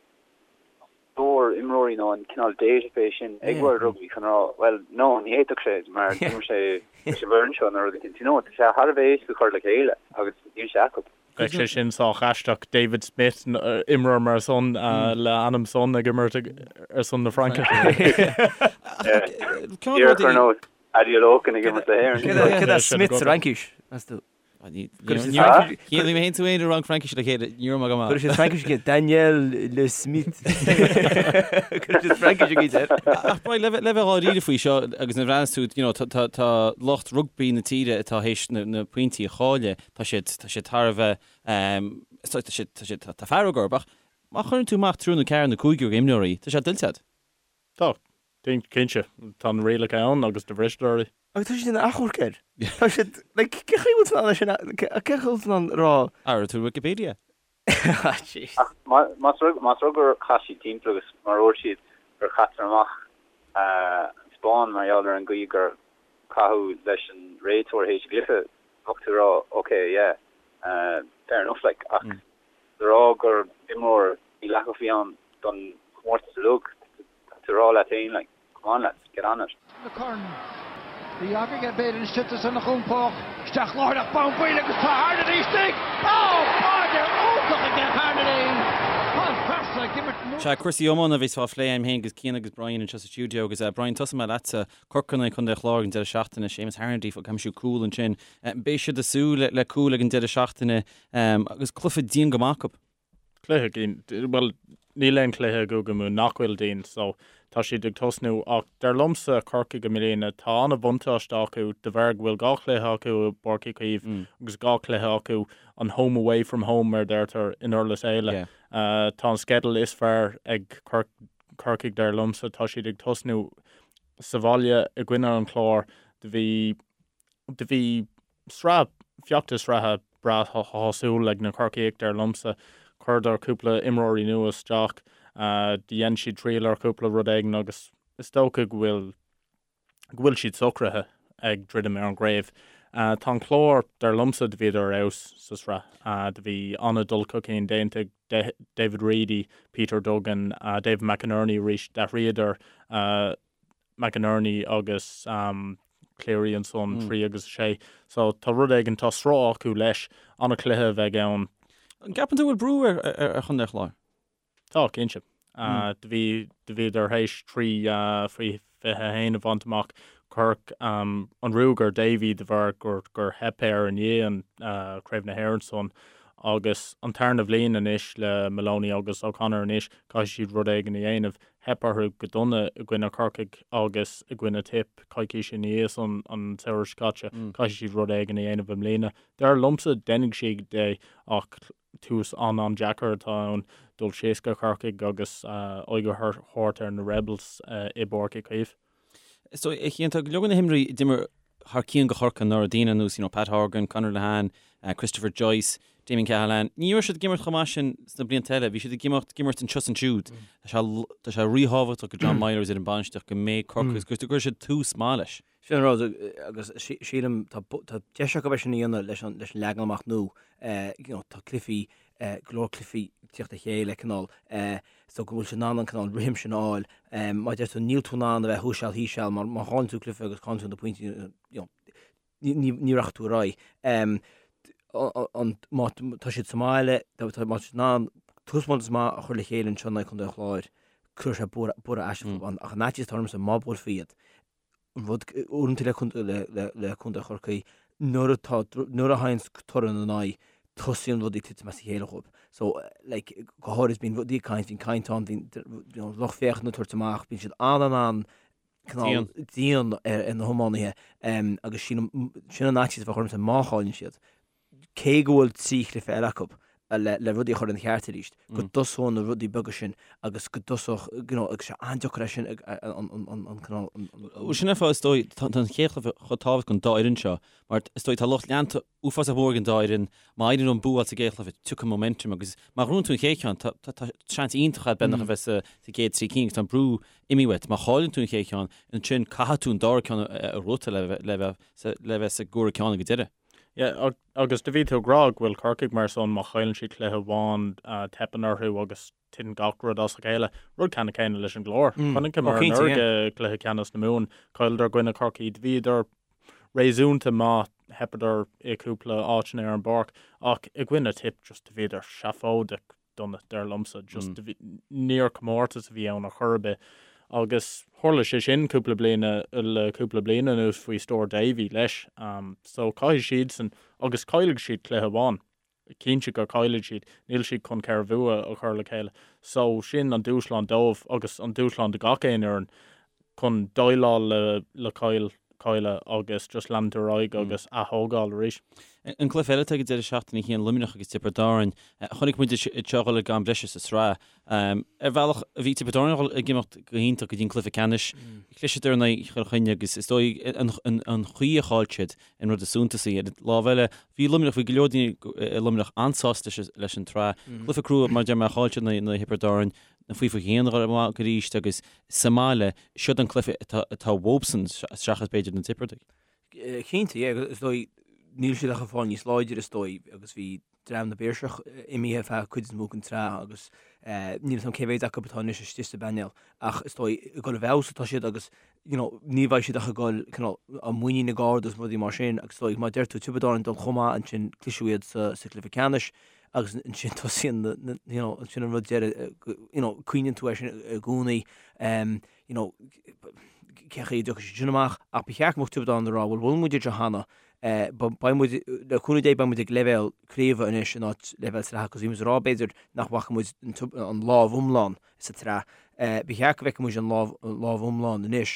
stór imreoirí nó an cineál database sin ag World Rugby chun rá, bhuel, no, ní fhéadfadh sé mar d'imir sé leis an bhfoireann seo nó rud éicint. You know, tá sé thar a bheith éasca cur le chéile agus níl sé acu. Bheadh sé sin sách aisteach, David Smith, imreoir mar san le ainm san ag imirt ar son na Fraince. Díreach ar nós Adeolokun ag imirt le hÉirinn. Cad é Smith sa Fhraincis, meas tú? Chian, bhí mé féin tú féin i rang Fraincise le chéile, ní raibh mé go maith. Chuir siad Fraincis aige, Daniel Le Smith. Chuir siad Fraincis aige air. Ach Brian, le bheith dháiríre faoi seo agus nuair a bhreathnaíos tú, you know, tá lucht rugbaí na tíre atá théis na pointí a chailleadh, tá siad, tá siad thar a bheith, tá siad, tá siad, tá fearg orthu, ach má chuireann tú amach triúr nó ceathrar nó cúigear imreoirí, tá sé tuillte agat. Tá, cinnte. Tá na rialacha ann agus do bhristear iad. Agus tá siad ina achomharc air. Tá siad, like, cén chaoi a bhfuil tú in ann é sin a, cén chaoi a bhfuil tú in ann rá. Ar tú Wikipedia? Ah, jeez. Ach más rud, más rud gur chaith siad timpeall agus mar a dúirt siad gur chaitear amach an Spáinn mar gheall ar an gcaoi gur caitheadh leis an réiteoir théis an gcluiche, bheadh tú ag rá ok, yeah, fair enough like, ach le rá gur imreoir mídhleathach a bhí ann don chomórtas uilig, tá tú ag rá leat féin like, come on lads, get on it. Na Corn. Bhí agaibh b'fhéidir istigh san chompách. Isteach láithreach bonn baill agus tá Harnedy istigh! Ó! Báide iontach aige Harnedy! Tá an fear seo ag imirt mór. Sea, cúrsaí iomána a bheas á phlé agam féin agus Cian agus Brian anseo sa stiúideo agus Brian, tosóidh mé leatsa. Corcaigh in aghaidh Chontae an Chláir ag an deireadh seachtaine, Séamus Harnedy ag aimsiú cúl ansin. Beidh siad ag súil le cúl ag an deireadh seachtaine agus cluiche dian go maith acu. Cluiche dian, bhuel, níl aon chluiche i gCúige Mumhan nach bhfuil dian so tá siad ag tosnú ach dar liomsa Corcaigh i mbliana tá an-bhuntáiste acu de bharr go bhfuil dhá chluiche acu i bPáirc Uí Chaoimh agus dhá chluiche acu an home away from home mar a deirtear i nDurlas Éile. Tá an sceideal is fearr ag Corcaigh dar liomsa, tá siad ag tosnú sa bhaile i gcoinne an Chláir do bhí do bhí sraith, feachtas sraithe breá shásúil ag na Corcaígh, dar liomsa. Chuireadar cúpla imreoirí nua isteach, dhein siad triail ar chúpla rud éigin agus is dócha go bhfuil, go bhfuil siad socraithe ag druidim ar an gcraobh. Tá an Clár, dar liomsa, do bhíodar ar fheabhas sa sraith. Do bhí an-dul chun cinn déanta ag David Reidy, Peter Duggan, David McInerney arís, d'athraíodar McInerney agus Cleary ansan, 3 agus 6. So tá rud éigin, tá sruth acu leis. An-chluiche a bheidh ann. An gceapann tú go bhfuil brú ar Chontae an Chláir? Tá, cinnte. Do bhí, do bhíodar théis 3 faoi 21 a bhaint amach. Cuireadh an ruaig ar Davy de bharr gur, gur theip air i ndiaidh an Craobh na hÉireann san. Agus an tarna bhliain anois le Moloney agus O'Connor anois, caithfidh siad rud éigin a dhéanamh. Theip orthu go dona i gcoinne Corcaigh agus i gcoinne Tipp coicís ina dhiaidh san an samhradh seo caite. Caithfidh siad rud éigin a dhéanamh i mbliana. Dar liomsa, déanfaidh siad é ach tús an-an-deacair atá ann dul síos go Corcaigh agus aghaidh a thabhairt ar na Rebels i bPáirc Uí Chaoimh. Is dóigh, a Chian, tá go leor de na himreoirí a d'imir thar cionn do Chorcaigh anuraidh, daoine ar nós, you know, Pat Horgan, Conor Lehane, Christopher Joyce, Damien Cahalane, ní raibh siad ag imirt chomh maith sin sna blianta eile, bhí siad ag imeacht, ag imirt anseo is ansiúd. Tá sé, tá sé ríthábhachtach do John Meyler agus ar an bainistíocht go mbeidh Corcaigh, agus go gcuirfidh siad tús maith leis. Sin an rud, agus sílim, tá, tá deis acu é sin a dhéanamh leis an, leis an leagan amach nua, you know, tá cluichí, go leor cluichí ag tíocht le chéile, cineál, so go bhfuil siad in ann an cineál rithim sin a fháil. Mar a deir tú, níl tú in ann a bheith thuas seal thíos seal mar má chailleann tú cluiche agus cailleann tú na pointí, you know, ní, ní rachaidh tú ar aghaidh. An, má tá siad sa mbaile, tá, má tá siad in ann taispeántas maith a chur le chéile anseo in aghaidh Chontae an Chláir, cuirfidh sé borradh, borradh aisteach fúthu. Ach an fhaitíos atá ormsa, má buailfí iad, an rud uaireanta le contae le le contae Chorcaí nuair atá nuair a thagann toradh ina n-aghaidh tosaíonn rudaí ag titim as a chéile dhóibh. So like go háirid bíonn rudaí ag caint, bíonn caint ann, bíonn you know lucht féachana ag tabhairt amach, bíonn siad an-an-an cineál dian ar ar na hiománaithe agus sílim sin an fhaitíos a bheadh ormsa má chailleann siad. cé go bhfuil 3 chluiche eile acu le le rudaí a chur ina cheart arís, go dtosóidh na rudaí beaga sin agus go dtosódh, you know, agus sé an-deacair é sin an an an cineál an an. Bhuel sin é an fáth is dóigh, tá an chéad chluiche chomh tábhachtach don dá fhoireann seo mar is dóigh tá lucht leanta uafásach mór ag an dá fhoireann, má éiríonn leo an bua a fháil sa gcéad chluiche, tiocfaidh momentum agus má ghnóthaíonn tú an chéad cheann tá tá tá seans iontach agat beagnach a bheith sa sa gcéad trí cinn agus tá an brú imithe uait. Má chailleann tú an chéad cheann, ansin caithfidh tú an dara ceann a ghnóthachtáil le bheith le bheith sa gcomhaireamh ceann ag an deireadh. Yeah, agus do bhí tú ag rá go bhfuil Corcaigh mar san má chailleann siad cluiche amháin teipeann orthu agus titeann gach rud as a chéile. Rud ceannann céanna leis an gClár. Chonaiceamar anuraidh i gcluiche ceannais na Mumhan, chailleadar i gcoinne Chorcaí, do bhíodar réasúnta maith, theipeadar i cúpla áiteanna ar an bpáirc ach i gcoinne Tip just do bhíodar seafóideach dona, dar liomsa. Just do bhí, níor comórtas a bhí ann ar chor ar bith agus tharla sé sin cúpla bliain le cúpla bliain anuas faoi stiúir Davy leis. So caithfidh siadsan agus caillfidh siad cluiche amháin. Cinnte go caillfidh siad, níl siad chun 4 bhua a chur le chéile. So sin an dúshlán dóibh agus an dúshlán do gach aon fhoireann chun déileáil le le caill cailleadh agus just leanúint ar aghaidh agus ath-thógáil arís. An cluiche eile atá ag an deireadh seachtaine a Chian Luimneach agus Tiobraid Árann. Chonaic muid iad seo a dhul ag am breise sa tsraith. Ar bhealach, bhí Tiobraid Árann ag imeacht go hiontach go dtí an cluiche ceannais. Chliseadar in aghaidh Chill Chainnigh agus is dóigh an chaoi a chaill siad an rud is suntasaí. Ar an lámh eile, bhí Luimneach, bhí go leor daoine i Luimneach an-sásta leis an tsraith. Cluiche crua, mar a deir mé, chaill siad in aghaidh Thiobraid Árann, na faoi 21 a dhul amach arís agus sa mbaile, siod an cluiche atá uathubsan seachas b'fhéidir na Tiobradaigh. Cinnte, yeah, is dóigh, níl siad ach ag fáil níos láidre is dóigh agus bhí dream na bPiarsach imithe feadh cuid is mó den tsraith agus níl a fhios agam cé mhéad acu atá anois istigh sa bpainéal ach is dóigh ag dul i bhfeabhas atá siad agus you know, ní bheidh siad ach ag dul cineál a muinín ag ardú agus rudaí mar sin agus is dóigh mar a deir tú Tiobraid Árann dul chomh maith ansin cliseadh iad sa, sa chluiche ceannais agus ansin tosaíonn na, na, you know, ansin an rud deireadh you know, cuimhníonn tú air sin i gcónaí um, you know, cé chaoi a dtiocfaidh siad sin amach ach ba cheart go mbeadh Tiobraid Árann ag rá bhuel bhuail muid iad seo cheana Beidh muid, le cúnamh Dé, beidh muid ag leibhéal craoibhe anois in áit leibhéal sraithe agus bhí muid ag rá b'fhéidir nach bhfaca muid an lámh iomlán sa tsraith. Ba cheart go bhfeicfeadh muid an lámh iomlán anois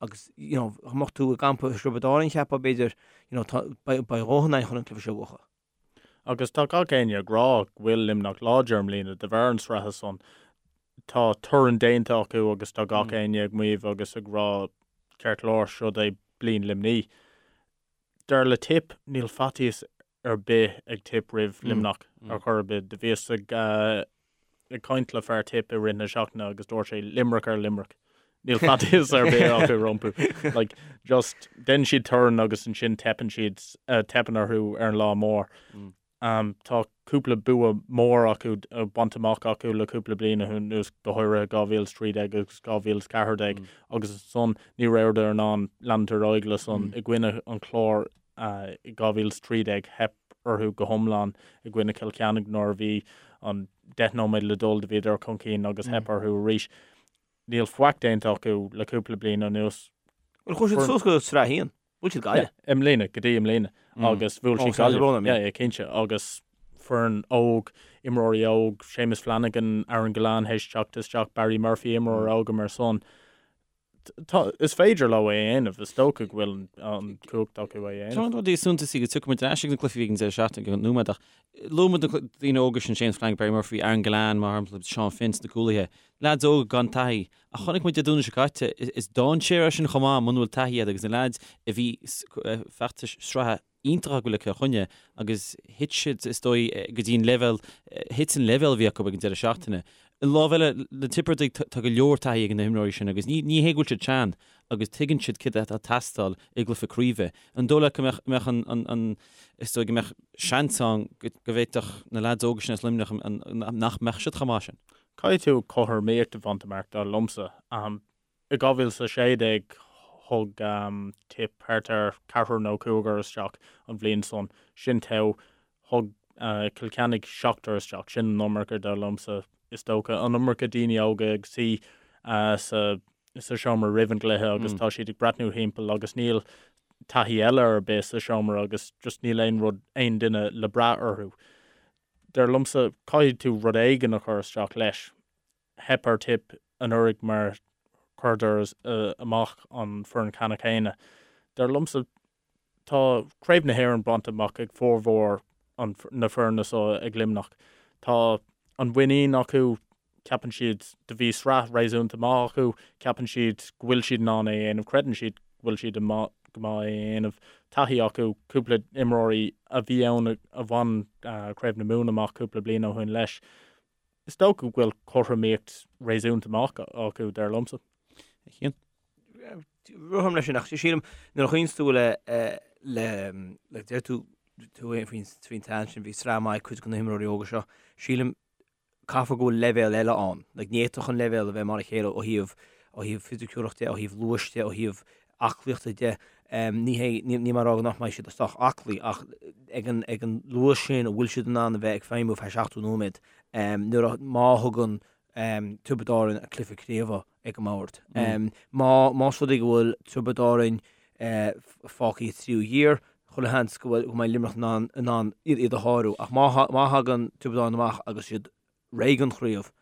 agus you know dá mbeadh tú i gcampa Thiobraid Árann cheapfá b'fhéidir you know tá beidh dhóthain againn chun an cluiche seo a bhuachan. Agus tá gach éinne ag rá go bhfuil Luimneach láidir i mbliana de bharr an sraithe san. Tá torann déanta acu agus tá gach éinne ag maíomh agus ag rá ceart go leor, siod é bliain Luimnigh. Dar le Tipp, níl faitíos ar bith ag Tipp roimh Luimneach ar chor ar bith. Do bhíos ag ag caint le fear Tipp i rith na seachtaine agus dúirt sé Limerick ar Limerick. Níl faitíos ar bith acu rompu. Like, just déanann siad torann agus ansin teipeann siad, teipeann orthu ar an lá mór. Tá cúpla bua mór acu bainte amach acu le cúpla bliain anuas, go háirithe 2013 agus 2014, agus ansan ní rabhadar in ann leanúint ar aghaidh le san i gcoinne an Chláir i 2013, theip orthu go hiomlán i gcoinne Chill Chainnigh nuair a bhí an 10 nóiméad le dul do bhíodar chun cinn agus theip orthu arís. Níl faic déanta acu le cúpla bliain anuas. Bhuel, chuaigh siad suas go Sraith 1. Bhuail siad Gaillimh. I mbliana, go dtí i mbliana. Agus bhuail siad Gaillimh. Yeah, yeah, cinnte. Agus foireann óg, imreoirí óg, Séamus Flanagan, Aaron Gillane théis teacht isteach, Barry Murphy, imreoir óg mar san. Tá, is féidir leo é a dhéanamh, is dócha go bhfuil an cumhacht acu é a dhéanamh. Tá rudaí suntasaí go dtiocfaidh muid ar ais ag na cluichí a bhí ag an deireadh seachtaine go nóiméad ach luaigh muid na daoine óga sin, Séamus Flanagan, Barry Murphy, Aaron Gillane, mar shampla, Seán Finn sna cúlaithe. Leaids óga gan taithí. Ach chonaic muid Dé Domhnaigh seo caite, is dainséar é sin chomh maith muna bhfuil taithí agat agus na leaids a bhí feachtais sraithe iontach acu le Cill Chainnigh agus thit siad is dóigh go dtí an leibhéal, thit an leibhéal a bhí acu ag an deireadh seachtaine. An lámh eile, na Tiobradaigh, tá go leor taithí ag na himreoirí sin agus ní hé go bhfuil siad sean agus tuigeann siad céard atá ag teastáil i gcluiche craoibhe. An dóigh leat go mbeadh, mbeadh an, an, an, is dóigh go mbeadh seans ann go, go bhféadfadh na leaids óga sin as Luimneach an, nach mbeadh siad chomh maith sin? Caithfidh tú cothromaíocht a bhaint amach, dar liomsa. I 2016 thug Tipp thart ar ceathrar nó cúigear isteach an bhliain san. Sin togha. Thug Cill Chainnigh seachtar isteach. Sin an iomarca, dar liomsa. Is dócha an iomarca daoine óga ag suí sa seomra roimh an gcluiche agus tá siad ag breathnú thimpeall agus níl taithí eile ar bith sa seomra agus just níl aon rud, aon duine le brath orthu. Dar liomsa, caithfidh tú rud éigin a chur isteach leis. Theip ar Tipp anuraidh mar chuireadar amach an foireann ceannann céanna. Dar liomsa, tá Craobh na hÉireann bainte amach ag formhór na foirne seo ag Luimneach. Tá an mhuinín acu, ceapann siad, do bhí sraith réasúnta maith acu, ceapann siad go bhfuil siad in ann é a dhéanamh, creideann siad go bhfuil siad go maith é a dhéanamh. Taithí acu, cúpla imreoirí a bhí ann a bhain Craobh na Mumhan amach cúpla bliain ó shin leis. Is dócha go bhfuil cothromaíocht réasúnta maith acu, dar liomsa. A Chian? Rithim leis sin ach sílim nuair a chuimhníonn tú le le le deir tú. tú faoin tsean sin, bhí sraith maith ag cuid de na himreoirí óga seo. Sílim, caithfear go bhfuil leibhéal eile ann. Like, ní fhéadfadh an leibhéal a bheith mar a chéile ó thaobh, ó thaobh fisiciúlacht de, ó thaobh luais de, ó thaobh aclaíochta de. Ní hé, níl mé ag rá nach mbeidh siad sách aclaí ach ag an, ag an luas sin an bhfuil siad in ann a bheith ag feidhmiú feadh 70 nóiméad nuair a, má thugann Tiobraid Árann an cluiche craoibhe ag an mbord. Má, más rud é go bhfuil Tiobraid Árann fágtha i dtríú ghiar, chuile sheans go bhfuil, go mbeidh Luimneach in ann, in ann iad a shárú. Ach má, má thagann Tiobraid Árann amach agus iad réidh don chraobh,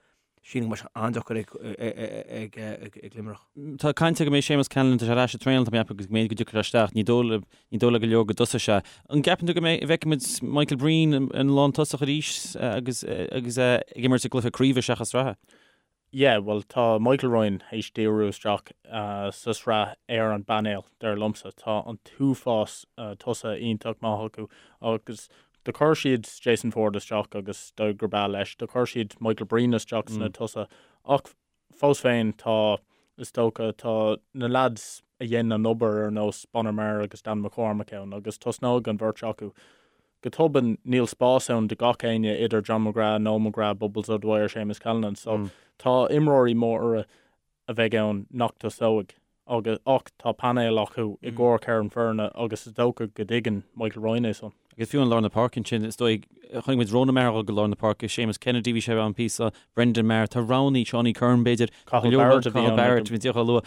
sílim go mbeidh sé an-deacair ag, ag, ag, ag Luimneach. Tá caint go mbeidh Séamus Callanan, tá sé ar ais ag traenáil, tá mé ag ceapadh agus go mb'fhéidir go dtiocfaidh sé isteach. Ní dóigh le, ní dóigh le go leor go dtosóidh sé. An gceapann tú go mbeidh, bhfeicfimid Michael Breen in lántosach arís agus, agus é ag imirt i gcluiche craoibhe seachas sraithe? Yeah, bhuel tá Michael Ryan théis díriú isteach sa sraith ar an bpainéal, dar liomsa. Tá an t-uafás tosaithe iontach maith acu agus do chuir siad Jason Forde isteach agus dóigh gur breá leis. Do chuir siad Michael Breen isteach sna tosaithe ach fós féin tá, is dócha, tá na lads a dhein an obair ar nós Bonner Maher agus Dan McCormack ann agus tosnóidh an bheirt acu. Go tobann, níl spás ann do gach éinne idir John McGrath, Noel McGrath, Bubbles O'Dwyer, Séamus Callanan so tá imreoirí móra a bheidh ann nach dtosóidh agus ach tá painéal acu i gcomhair ceithre foirne agus is dócha go dtuigeann Michael Ryan é san. Agus fiú i lár na páirce ansin, is dóigh, chonaic muid Ronan Maher a dhul go lár na páirce, Séamus Kennedy, bhí sé ann píosa, Brendan Maher, tá roghanna, Seánie Curran b'fhéidir, Cathal Barrett a bhí ann. Cathal Barrett, bhí díreach á lua.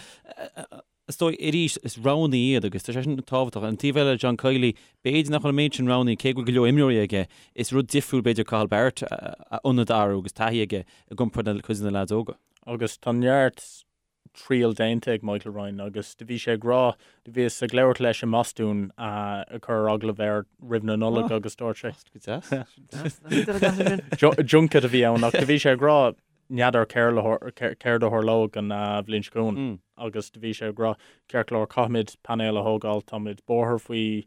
Is dóigh, arís, is roghanna iad agus tá sé sin tábhachtach. An taobh eile, John Kiely, b'fhéidir nach bhfuil an méid sin roghanna, cé go bhfuil go leor imreoirí aige, is rud difriúil b'fhéidir Cathal Barrett a ionad a athrú agus taithí aige i gcomparáid le cuid de na leaids óga. Agus tá neart triail déanta ag Michael Ryan agus do bhí sé ag rá, do bhíos ag labhairt leis i mBostún ag cur agallamh air roimh na Nollag agus dúirt sé. Go deas. Junket a bhí ann ach do bhí sé ag rá n'fheadar céard a tharlóidh an bhliain seo chugainn agus do bhí sé ag rá, ceart go leor, caithfimid painéal a thógáil, táimid buartha faoi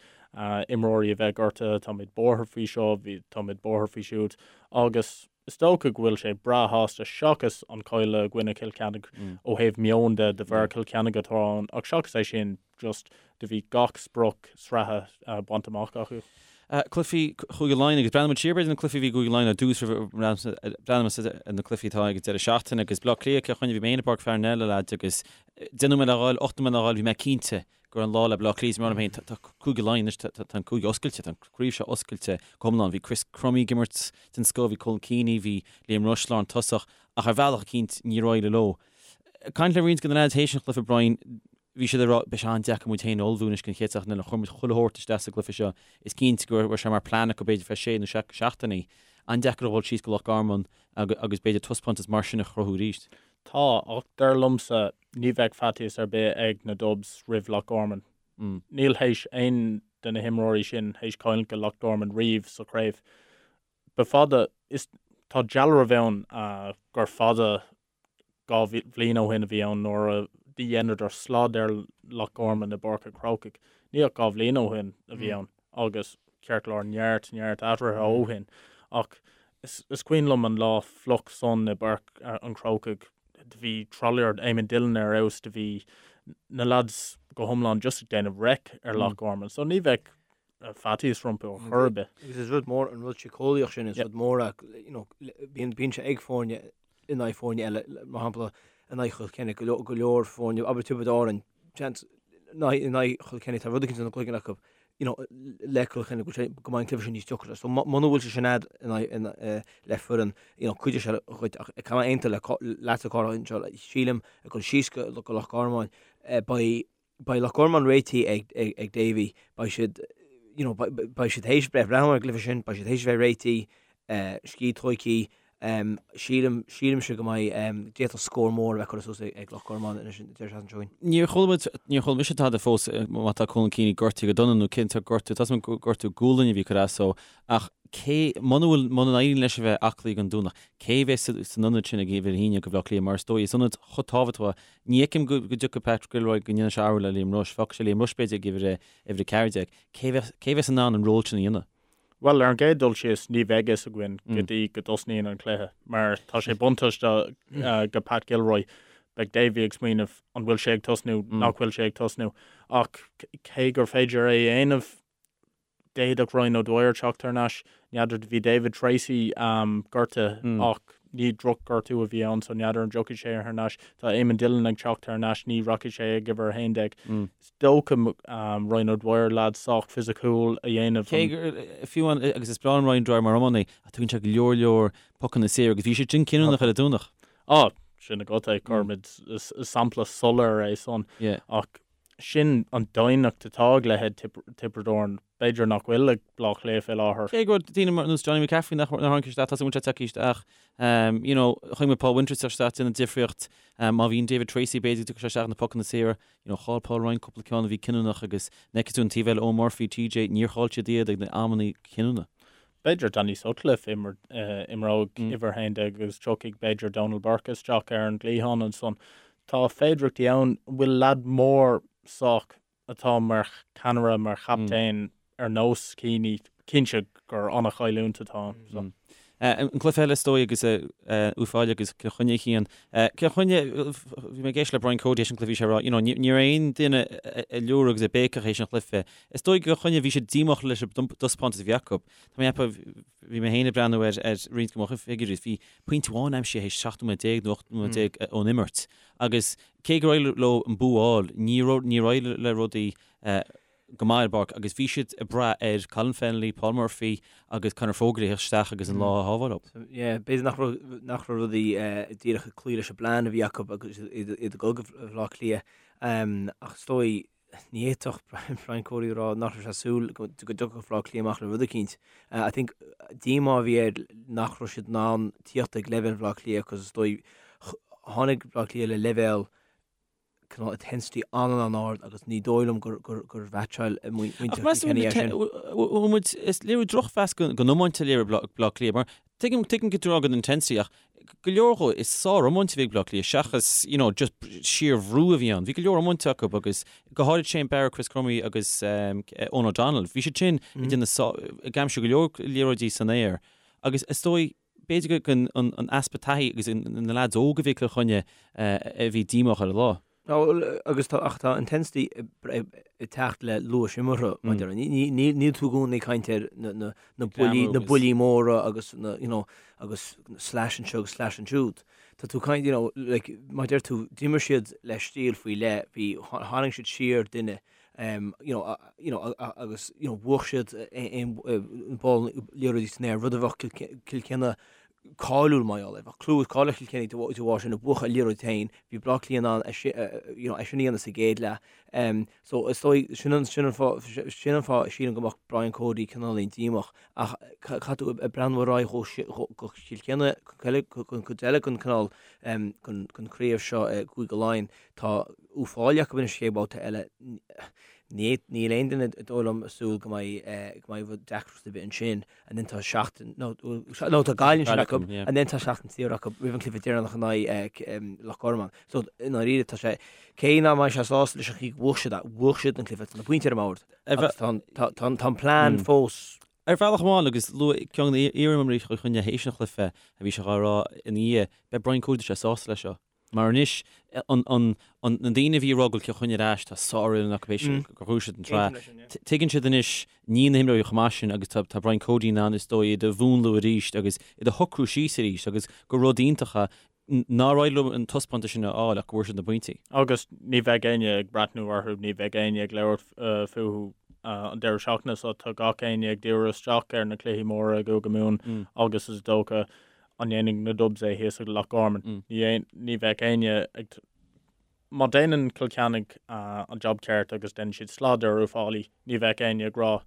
imreoirí a bheith gortaithe, táimid buartha faoi seo, táimid buartha faoi siúd agus is dócha go bhfuil sé breá shásta seachas an cailleadh i gcoinne Chill Chainnigh ó thaobh meoin de, de bharr Cill Chainnigh atá ann ach seachas é sin just do bhí gach sprioc sraithe bainte amach acu. Cluichí Chúige Laighean agus breathnaíonn muid siar b'fhéidir na cluichí a bhí i gCúige Laighean ar dtús roimh breathnóimid ar na cluichí atá ag an deireadh seachtaine agus Bleá Cliath Cill Chainnigh bhí mé féin i bPáirc Pharnell a leaids agus 10 nóiméad le dhul, 8 nóiméad le dhul bhí mé cinnte go raibh an lá le Bleá Cliath is mar féin tá Cúige Laighean anois tá an cúige oscailte tá an craobh seo oscailte go hiomlán bhí Chris Crummey ag imirt den scoth bhí Colm Keaney bhí Liam Rushe lántosach ach ar bhealach eicínt níor éirigh leo. Caint le roinnt de na leaids théis an chluiche Brian Bhí siad ag rá, beidh sé an-deacair muid féin a ullmhú anois don chéad seachtain eile, chuir muid chuile shórt isteach sa gcluiche seo, is cinnte go raibh sé mar plean acu b'fhéidir feadh sé nó seacht seachtainí. An-deacair a dhul síos go Loch Garman agus b'fhéidir taispeántas mar sin a chruthú arís. Tá, ach dar liomsa ní bheadh faitíos ar bith ag na Dubs roimh Loch Garman. Níl théis aon de na himreoirí sin théis cailliúint go Loch Garman riamh sa chraobh. Ba fada, is tá dealramh ann gur fada 2 bhliain ó shin a bhí ann nuair a dheineadar slad ar Loch Garman i bPáirc an Chrócaigh. Ní ach 2 bhliain ó shin a bhí ann agus ceart go leor neart, neart athruithe ó shin ach is cuimhin liom an lá fliuch san i bPáirc an Chrócaigh, do bhí tralaíocht Eamon Dillon ar fheabhas, do bhí na lads go hiomlán just ag déanamh raic ar Loch Garman so ní bheadh faitíos rompu ar chor ar bith. Agus is rud mór an rud síceolaíoch sin, is rud mór é, you know, bíonn, bíonn sé ag foirne in aghaidh foirne eile, mar shampla in aghaidh Chill Chainnigh, go leor, go leor foirne, abair Tiobraid Árann, seans, in aghaidh, in aghaidh Chill Chainnigh, tá rud éicint ina gcloigeann acu, you know, le Cill Chainnigh, go bhfuil sé, go mbeidh an cluiche sin níos deacra. So muna bhfuil sé sin a'd in aghaidh, in, eh, le foireann, you know, cuideoidh sé dhuit, ach caithfidh mé aontú le, leatsa Cárthach anseo, sílim, ag dul síos go, go Loch Garman, eh, beidh, Beidh Loch Garman réitithe ag Davy, beidh siad you know beidh siad théis breith breathnú ar an gcluiche sin, beidh siad théis a bheith réitithe, scíth tóigthe, sílim, sílimse go mbeidh, d'fhéadfadh scór mór a bheith curtha suas ag Loch Garman anois an deireadh seachtaine seo chugainn. Níor chuala muid, níor chuala mise tada fós má tá Colm Keaney gortaithe go dona nó cén sórt gortú, tá a fhios agam gur gortú gualainne a bhí curtha as dó ach cé, muna bhfuil, muna n-éiríonn leis a bheith aclaí don Domhnach, cé a bheas san ionad sin ag uimhir a haon do Bhaile Átha Cliath mar is dóigh is ionad chomh tábhachtach Ní fheicim go dtiocfaidh Pat Gilroy go ndéanfaidh sé athrú le Liam Rushe. Fágfaidh sé Liam Rushe b'fhéidir ag uimhir uimhir 14. Cé bheas cé bheas in ann an ról sin a dhéanamh? Bhuel, ar an gcéad dul síos, ní bheidh fhios againn go dtí go dtosnaíonn an cluiche mar tá sé buntáiste go Pat Gilroy. Beidh Davy ag smaoineamh an bhfuil sé ag tosnú, nach bhfuil sé ag tosnú. Ach cé gur féidir é a dhéanamh, D'fhéadfadh Ryan O'Dwyer teacht thar n-ais. N'fheadar, bhí David Treacy gortaithe ach ní droch-ghortú a bhí ann so n'fheadar an dtiocfaidh sé thar n-ais. Tá Eamon Dillon ag teacht thar n-ais, ní rachaidh sé ag uimhir 11. Is dócha Ryan O'Dwyer, leaid sách fisiciúil a dhéanamh. Cé gur, fiú amháin, agus is breá liom Ryan O'Dwyer mar iománaí, ach tugann sé go leor leor pocanna saor agus bhí sé sin cinniúnach ar an Domhnach. Á, sin agat é, cuirimid, is sampla soiléir é san. Ach sin an doimhneacht atá ag leithéid Tiobraid Árann, b'fhéidir nach bhfuil ag Bleá Cliath fé láthair. Cé go raibh daoine ar nós Johnny McCaffrey nach tháinig isteach, tá sé tagtha isteach, you know, chonaic muid Paul Winters isteach déanamh difríocht, má bhíonn David Treacy b'fhéidir go dtiocfaidh sé isteach na pocanna saora, you know, chaill Paul Ryan cúpla ceann a bhí cinniúnach agus an bhfeiceann tú an taobh eile Eoin Murphy, TJ, níor chaill siad iad ag na amanna cinniúna. B'fhéidir Danny Sutcliffe imreoidh uimhir 11 agus tiocfaidh b'fhéidir Donal Burke isteach ar an gcliathán ansan. Tá féidireachtaí ann. An bhfuil leaid mór sách atá mar cheannaire, mar chaptaen ar nós Keaney? Cinnte gur an-chailliúint atá ann. An cluiche eile is dóigh agus Uíbh Fhailí agus Cill Chainnigh a Chian. Cill Chainnigh, bhí mé ag éisteacht le Brian Cody théis an cluiche, bhí sé ag rá, you know, ní raibh aon duine ag liúradh agus ag béiceach théis an chluiche. Is dóigh go Cill Chainnigh bhí siad díomách leis an dtaispeántas a bhí acu. Tá mé ag ceapadh, bhí mé féin ag breathnú ar ar roinnt de mo figiúirí, bhí pointe amháin aimsithe théis 17 nóiméad nó 18 nóiméad ón imirt. Agus cé gur éirigh leo an bua a fháil, níor níor éirigh le rudaí go maith ar an bpáirc agus bhí siad ag brath ar Colin Fennelly, Paul Murphy agus Conor Fogarty a theacht isteach agus an lá a shábháil dóibh. Yeah, b'fhéidir nach raibh nach raibh rudaí díreach ag cloí leis an bplean a bhí acu agus iad ag dul go Bhaile Átha Cliath. Ach is dóigh, ní fhéadfadh Brian Cody a rá nach raibh sé ag súil go dtiocfadh Baile Átha Cliath amach le rud eicínt. I think díomá a bhí air nach raibh siad in ann tíocht ag leibhéal Bhaile Átha Cliath agus is dóigh tháinig Baile Átha Cliath le leibhéal cineál intensity an-an-ard agus ní dóigh liom gur gur mheaitseáil muintir Kilkenny é sin. Bhfuil muid, is léiriú drochmheas den iomáint a léirigh Baile Átha Cliath mar tuigim tuigim go dtráth den intensity ach go leor dhó is sár-iomáint a bhí ag Baile Átha Cliath seachas you know just síorbhrú a bhí ann. Bhí go leor iomáinte acu agus go háirid Shane Barrett, Chris Crummey agus Eoghan O'Donnell. Bhí siad sin ag déanamh ag aimsiú go leor liathróidí san aer agus is dóigh B'fhéidir gur an easpa taithí agus na leaids óga a bhí ag Cill Chainnigh a bhí díomách ar an lá. Agus tá, ach tá intensity ag teacht le luas imeartha, mar a déarfá. Níl tú i gcónaí ag caint ar na buillí, na buillí móra agus na, you know, agus slash anseo agus slash ansiúd. Tá tú ag caint, you know, like, mar a deir tú, d'imir siad le stíl faoi leith, bhí, tharraing siad siar duine you know, you know, agus you know, bhuaigh siad aon ball liathróidí san aer, rud a bheadh Cill Chainnigh cáiliúil mar gheall air. Bheadh clú is cáil ar Chill Chainnigh de bharr sin, a bhuachan an liathróid féin, bhí Bleá Cliath in ann é you know, é sin a dhéanamh sa gcéad leath. So is dóigh, sin an, sin an fáth, sin an fáth a sílim go mbeadh Brian Cody cineáilín díomách ach caithfidh tú ag breathnú ar aghaidh go Cill Chainnigh, don chuid eile den cineál, den chraobh seo i gCúige Laighean, Tá Uíbh Fhailí acu anois chéad bhabhta eile. Níl aon duine is dóigh liom ag súil go mbeidh go mbeidh deacracht ar bith ansin. And then tá seachtain nó nó tá Gaillimh ansin acu and then tá seachtain saor acu roimh an cluiche deireanach in aghaidh Loch Garman. So i ndáiríre tá sé cé nach mbeidh sé sásta leis an chaoi go bhuaigh siad é, bhuaigh siad an cluiche tá na pointí ar an mbord agus tá tá tá an plean fós Ar bhealach amháin, agus luaigh ceann de na hiar-imreoirí Chill Chainnigh théis an chluiche a bhí sé dhá rá ina dhiaidh, beidh Brian Cody sé sásta leis seo. Mar anois, an na daoine a bhí ag rá go bhfuil Cill Chainnigh ar ais, tá sárfhoireann acu théis gur bhuaigh siad an tsraith. Tuigeann siad anois, níl na himreoirí chomh maith sin agus tá Brian Cody in ann is dóigh iad a mhúnlú arís agus iad a shocrú síos arís agus gur rud iontach é nár éirigh leo an taispeántas sin a fháil ach go bhfuair siad na pointí. Agus ní bheidh éinne ag breathnú orthu, ní bheidh éinne ag labhairt fúthu an deireadh seachtaine so tá gach éinne ag díriú isteach ar na cluichí móra i gCúige Mumhan agus is dócha An ndéanfaidh na Dubs é thíos ag Loch Garman? Ní bheadh éinne ag. Má déanann Cill Chainnigh an jab ceart agus déanann siad slad ar Uíbh Fhailí, ní bheadh éinne ag rá,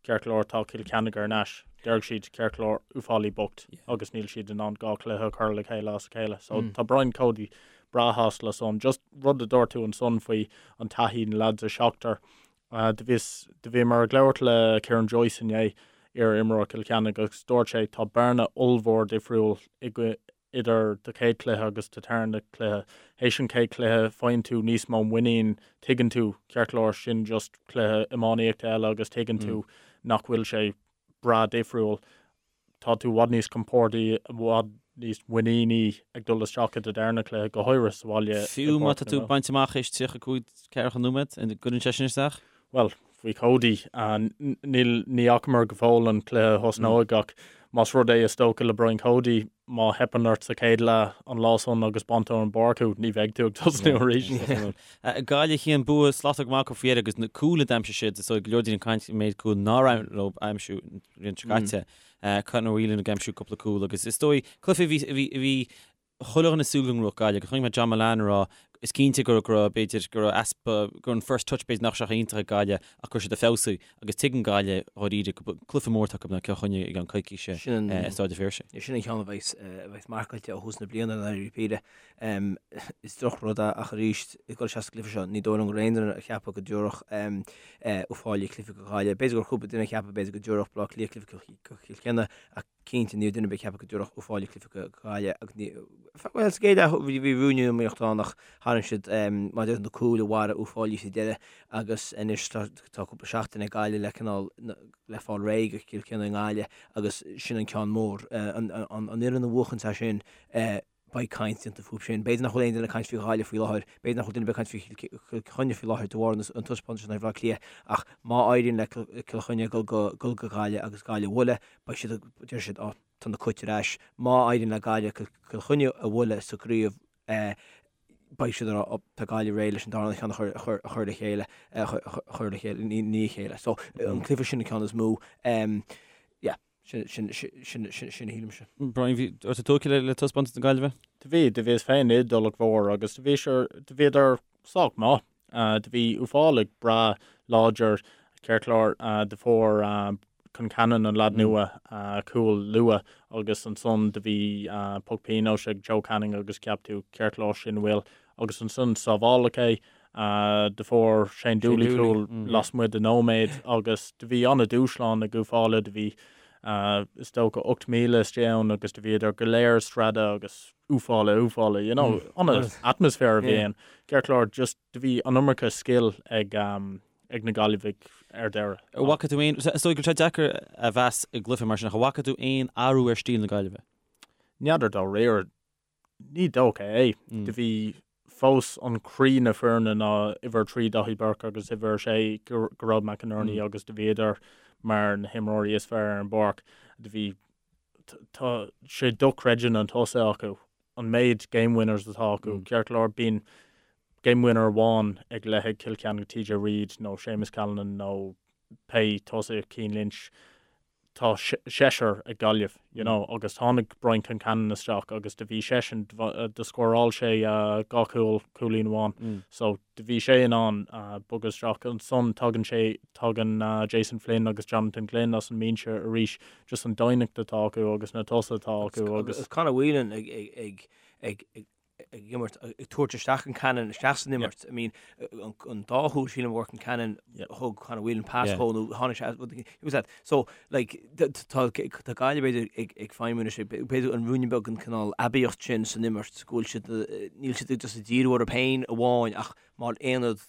ceart go leor, tá Cill Chainnigh ar ais. Déarfaidh siad, ceart go leor, Uíbh Fhailí bocht agus níl siad in ann 2 chluiche a chur le chéile as a chéile. So tá Brian Cody breá shásta le san. Just rud a dúirt tú ansan faoi an taithí, na lads a seachtar. Do bhíos, do bhíomar ag labhairt le Ciarán Joyce inné, iar-imreoir Chill Chainnigh, agus dúirt sé, tá bearna ollmhór difriúil idir do chéad chluiche agus do tarna cluiche. Théis an chéad chluiche, faigheann tú níos mó muinín, tuigeann tú, ceart go leor, sin just cluiche iománaíochta eile agus tuigeann tú nach bhfuil sé breá difriúil. Tá tú i bhfad níos compordaí, i bhfad níos muiníní ag dul isteach i do darna cluiche, go háirithe sa bhaile. Fiú má tá tú bainte amach théis 35, 40 nóiméad, an gcuireann sé sin isteach? Bhuel, faoi Cody, níl, ní fhacamar go fóill an cluiche a thosnóidh ach más rud é is dócha le Brian Cody, má theipeann ort sa chéad leath an lá san agus baintear ón bpáirc thú, ní bheidh tú ag tosnú arís. Gaillimh Cian bua slachtmhar go maith acu faoi dheireadh agus na cúil a d'aimsigh siad, is dóigh go leor daoine ag caint an méid cúil nár éirigh leo a aimsiú an bhliain seo caite. Conor Whelan ag aimsiú cúpla cúl agus is dóigh cluiche a bhí, a bhí, a bhí chuile dhuine ag súil go ngnóthódh Gaillimh agus chonaic mé John Mullane ag rá is cinnte go raibh b'fhéidir go raibh easpa go raibh an first touch b'fhéidir nach raibh sé iontach ag Gaillimh ach go raibh siad ag feabhsú agus tuigeann Gaillimh dháiríre go cluiche mór atá acu in aghaidh Cill Chainnigh i gceann coicíse i Stáid an Phiarsaigh. Sin an ceann a bheas a bheas marcáilte ó thús na bliana i ndáiríre píre. Is drochrud é ach arís ag dul isteach sa gcluiche seo ní dóigh liom go raibh aon duine ag ceapadh go dtabharfadh Uíbh Fhailí cluiche go Gaillimh. B'fhéidir go raibh cúpla duine ag ceapadh b'fhéidir go dtabharfadh Baile Átha Cliath cluiche go Cill Chainnigh ach Cinnte, ní raibh duine ar bith ag ceapadh go dtabharfadh Uíbh Fhailí cluiche go Gaillimh agus ní, bhuel, sa gcéad leath bhí bhí ruainne iomaíochta ann ach tharraing siad mar a deir na cúil a mharaigh Uíbh Fhailí sa deireadh agus anois tá tá cúpla seachtain ag Gaillimh le cineál le fáil réidh go Cill Chainnigh i nGaillimh agus sin an ceann mór. An an an fhoireann a bhuachanns é sin beidh caint déanta fúthu sin. B'fhéidir nach bhfuil aon duine ag caint faoi Ghaillimh faoi láthair, b'fhéidir nach bhfuil duine ar bith ag caint faoi Chill Chainnigh faoi láthair de bharr an taispeántais in aghaidh Bhaile Átha Cliath ach má éiríonn le Cill Chainnigh dul go dul go Gaillimh agus Gaillimh a bhualadh, beidh siad ag, deir siad, á, tá na Cait ar ais. Má éiríonn le Gaillimh Cill Chainnigh a bhualadh sa gcraobh, beidh siad ag rá, á, tá Gaillimh réidh leis an darna ceann a chur, a chur, a chur le chéile, a chur le chéile, i ndiaidh a chéile. So, an cluiche sin an ceann is mó. Yeah. Sin a shílimse. Brian, bhí tú tógtha le taispeántas na Gaillimhe? Do bhí, do bhíos féin i dTulach Mhór agus do bhí sé, do bhíodar sách maith. Do bhí Uíbh Fhailí breá láidir, ceart go leor, do fuair Concannon, an leaid nua, cúl luath agus ansan do bhí poc pionóis ag Joe Canning agus cheap tú ceart go leor sin bhfuil agus ansan sábháladh é. Do fuair Shane Dooley cúl lasmuigh de nóiméad agus do bhí an-dúshlán ag Uíbh Fhailí. Do bhí is dócha 8,000 istigh ann agus do bhíodar go léir ag screadadh agus Uíbh Fhailí, Uíbh Fhailí, you know, an-atmaisféar a bhí ann. Ceart go leor, just do bhí an iomarca scil ag ag na Gaillimhigh ar deireadh. An bhfaca tú aon, is dóigh go bhfuil sé deacair a mheas i gcluiche mar sin, ach an bhfaca tú aon athrú ar stíl na Gaillimhe? N'fheadar dáiríre. Ní dócha é. Do bhí fós an croí na foirne ná uimhir 3 Daithí Burke agus uimhir 6 Gearóid McInerney agus do bhíodar mar na himreoirí is fearr ar an bpáirc. Do bhí tá sé dochreidte na tosaithe acu, an méid game winners atá acu. Ceart go leor bíonn game winner amháin ag leithéid Cill Chainnigh TJ Reid nó Séamus Callanan nó pé tosaí Cian Lynch. tá seisear ag Gaillimh, you know, agus tháinig Brian Concannon isteach agus do bhí seisean, do scóráil sé dhá chúl, cúilín amháin, so do bhí sé in ann bogadh isteach. Ansan tagann sé, tagann Jason Flynn agus Jonathan Glynn as an mbinse arís, just an doimhneacht atá acu agus na tosaithe atá acu agus. Agus Conor Whelan ag, ag, ag, ag, ag imirt, ag tabhairt isteach Concannon isteach san imirt. I mean, an dá chúl sílim a bhfuair Concannon thug Conor Whelan pas dhó nó tháinig sé it was that. So, like, tá tá Gaillimh b'fhéidir ag ag feidhmiú anois, b'fhéidir an ruainne beag an cineál aibíocht sin san imirt go bhfuil siad níl siad just ag díriú orthu féin amháin ach mar aonad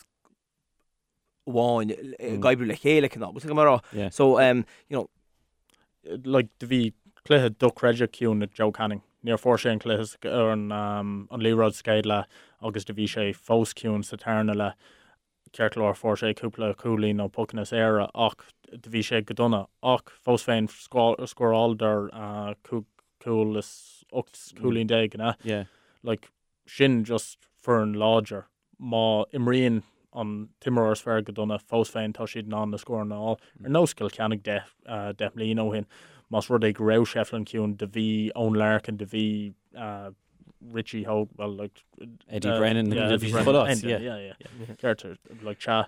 amháin ag oibriú le chéile cineál. Bhfuil mar rá. So, um, you know, like, do bhí cluiche dochreidte ciúin ag Joe Canning. Níor fuair sé an cluiche ar an, um, an liathróid sa chéad leath agus do bhí sé fós ciúin sa tarna leath. Ceart go leor fuair sé cúpla cúilín nó pocanna saora ach do bhí sé go dona ach fós féin scóráladar uh, cúig cúl is 18 cúilín, an ea? Yeah. Like, sin just foireann láidir. Má imríonn an t-imreoir is fearr go dona, fós féin tá siad in ann na scóranna a fháil. Ar nós Cill Chainnigh deich mbliana ó shin, más rud é go raibh Shefflin ciúin, do bhí Eoin Larkin, do bhí Richie Hogan, well like Eddie Brennan, yeah, Eddie Brennan, yeah, yeah, yeah. Ceart, like sea,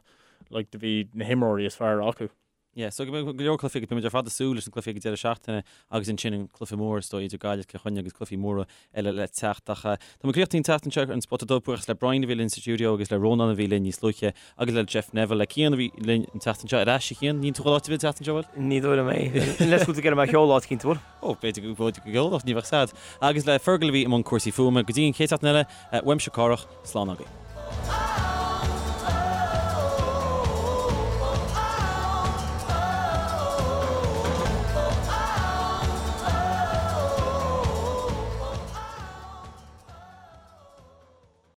like do bhí na himreoirí is fearr acu. Yeah, so go mbeidh go leor cluichí agus beimid ar fad ag súil leis na cluichí ag an deireadh seachtaine agus ansin an cluiche mór is dóigh idir Gaillimh is Cill Chainnigh agus cluichí móra eile le teacht. Ach tá muid críochnaithe an tseachtain seo ar an Spota Dubh, buíochas le Brian a bhí linn sa stiúideo agus le Rónán a bhí linn níos luaithe agus le Jeff Neville, le Cian a bhí linn an tseachtain seo. Ar ais, a Chian, níl tú ag dul áit ar bith an tseachtain seo, bhfuil? Ní dóigh liom é. Unless go bhfuil tú ag iarraidh mé a sheoladh áit eicínt, bhfuil? Ó, b'fhéidir go bhféidir go gceolfadh, ní bheadh sad. Agus le Fergal a bhí i mbun cúrsaí fuaime. Go dtí an chéad seachtain eile, uaimse Cárthach, slán agaibh.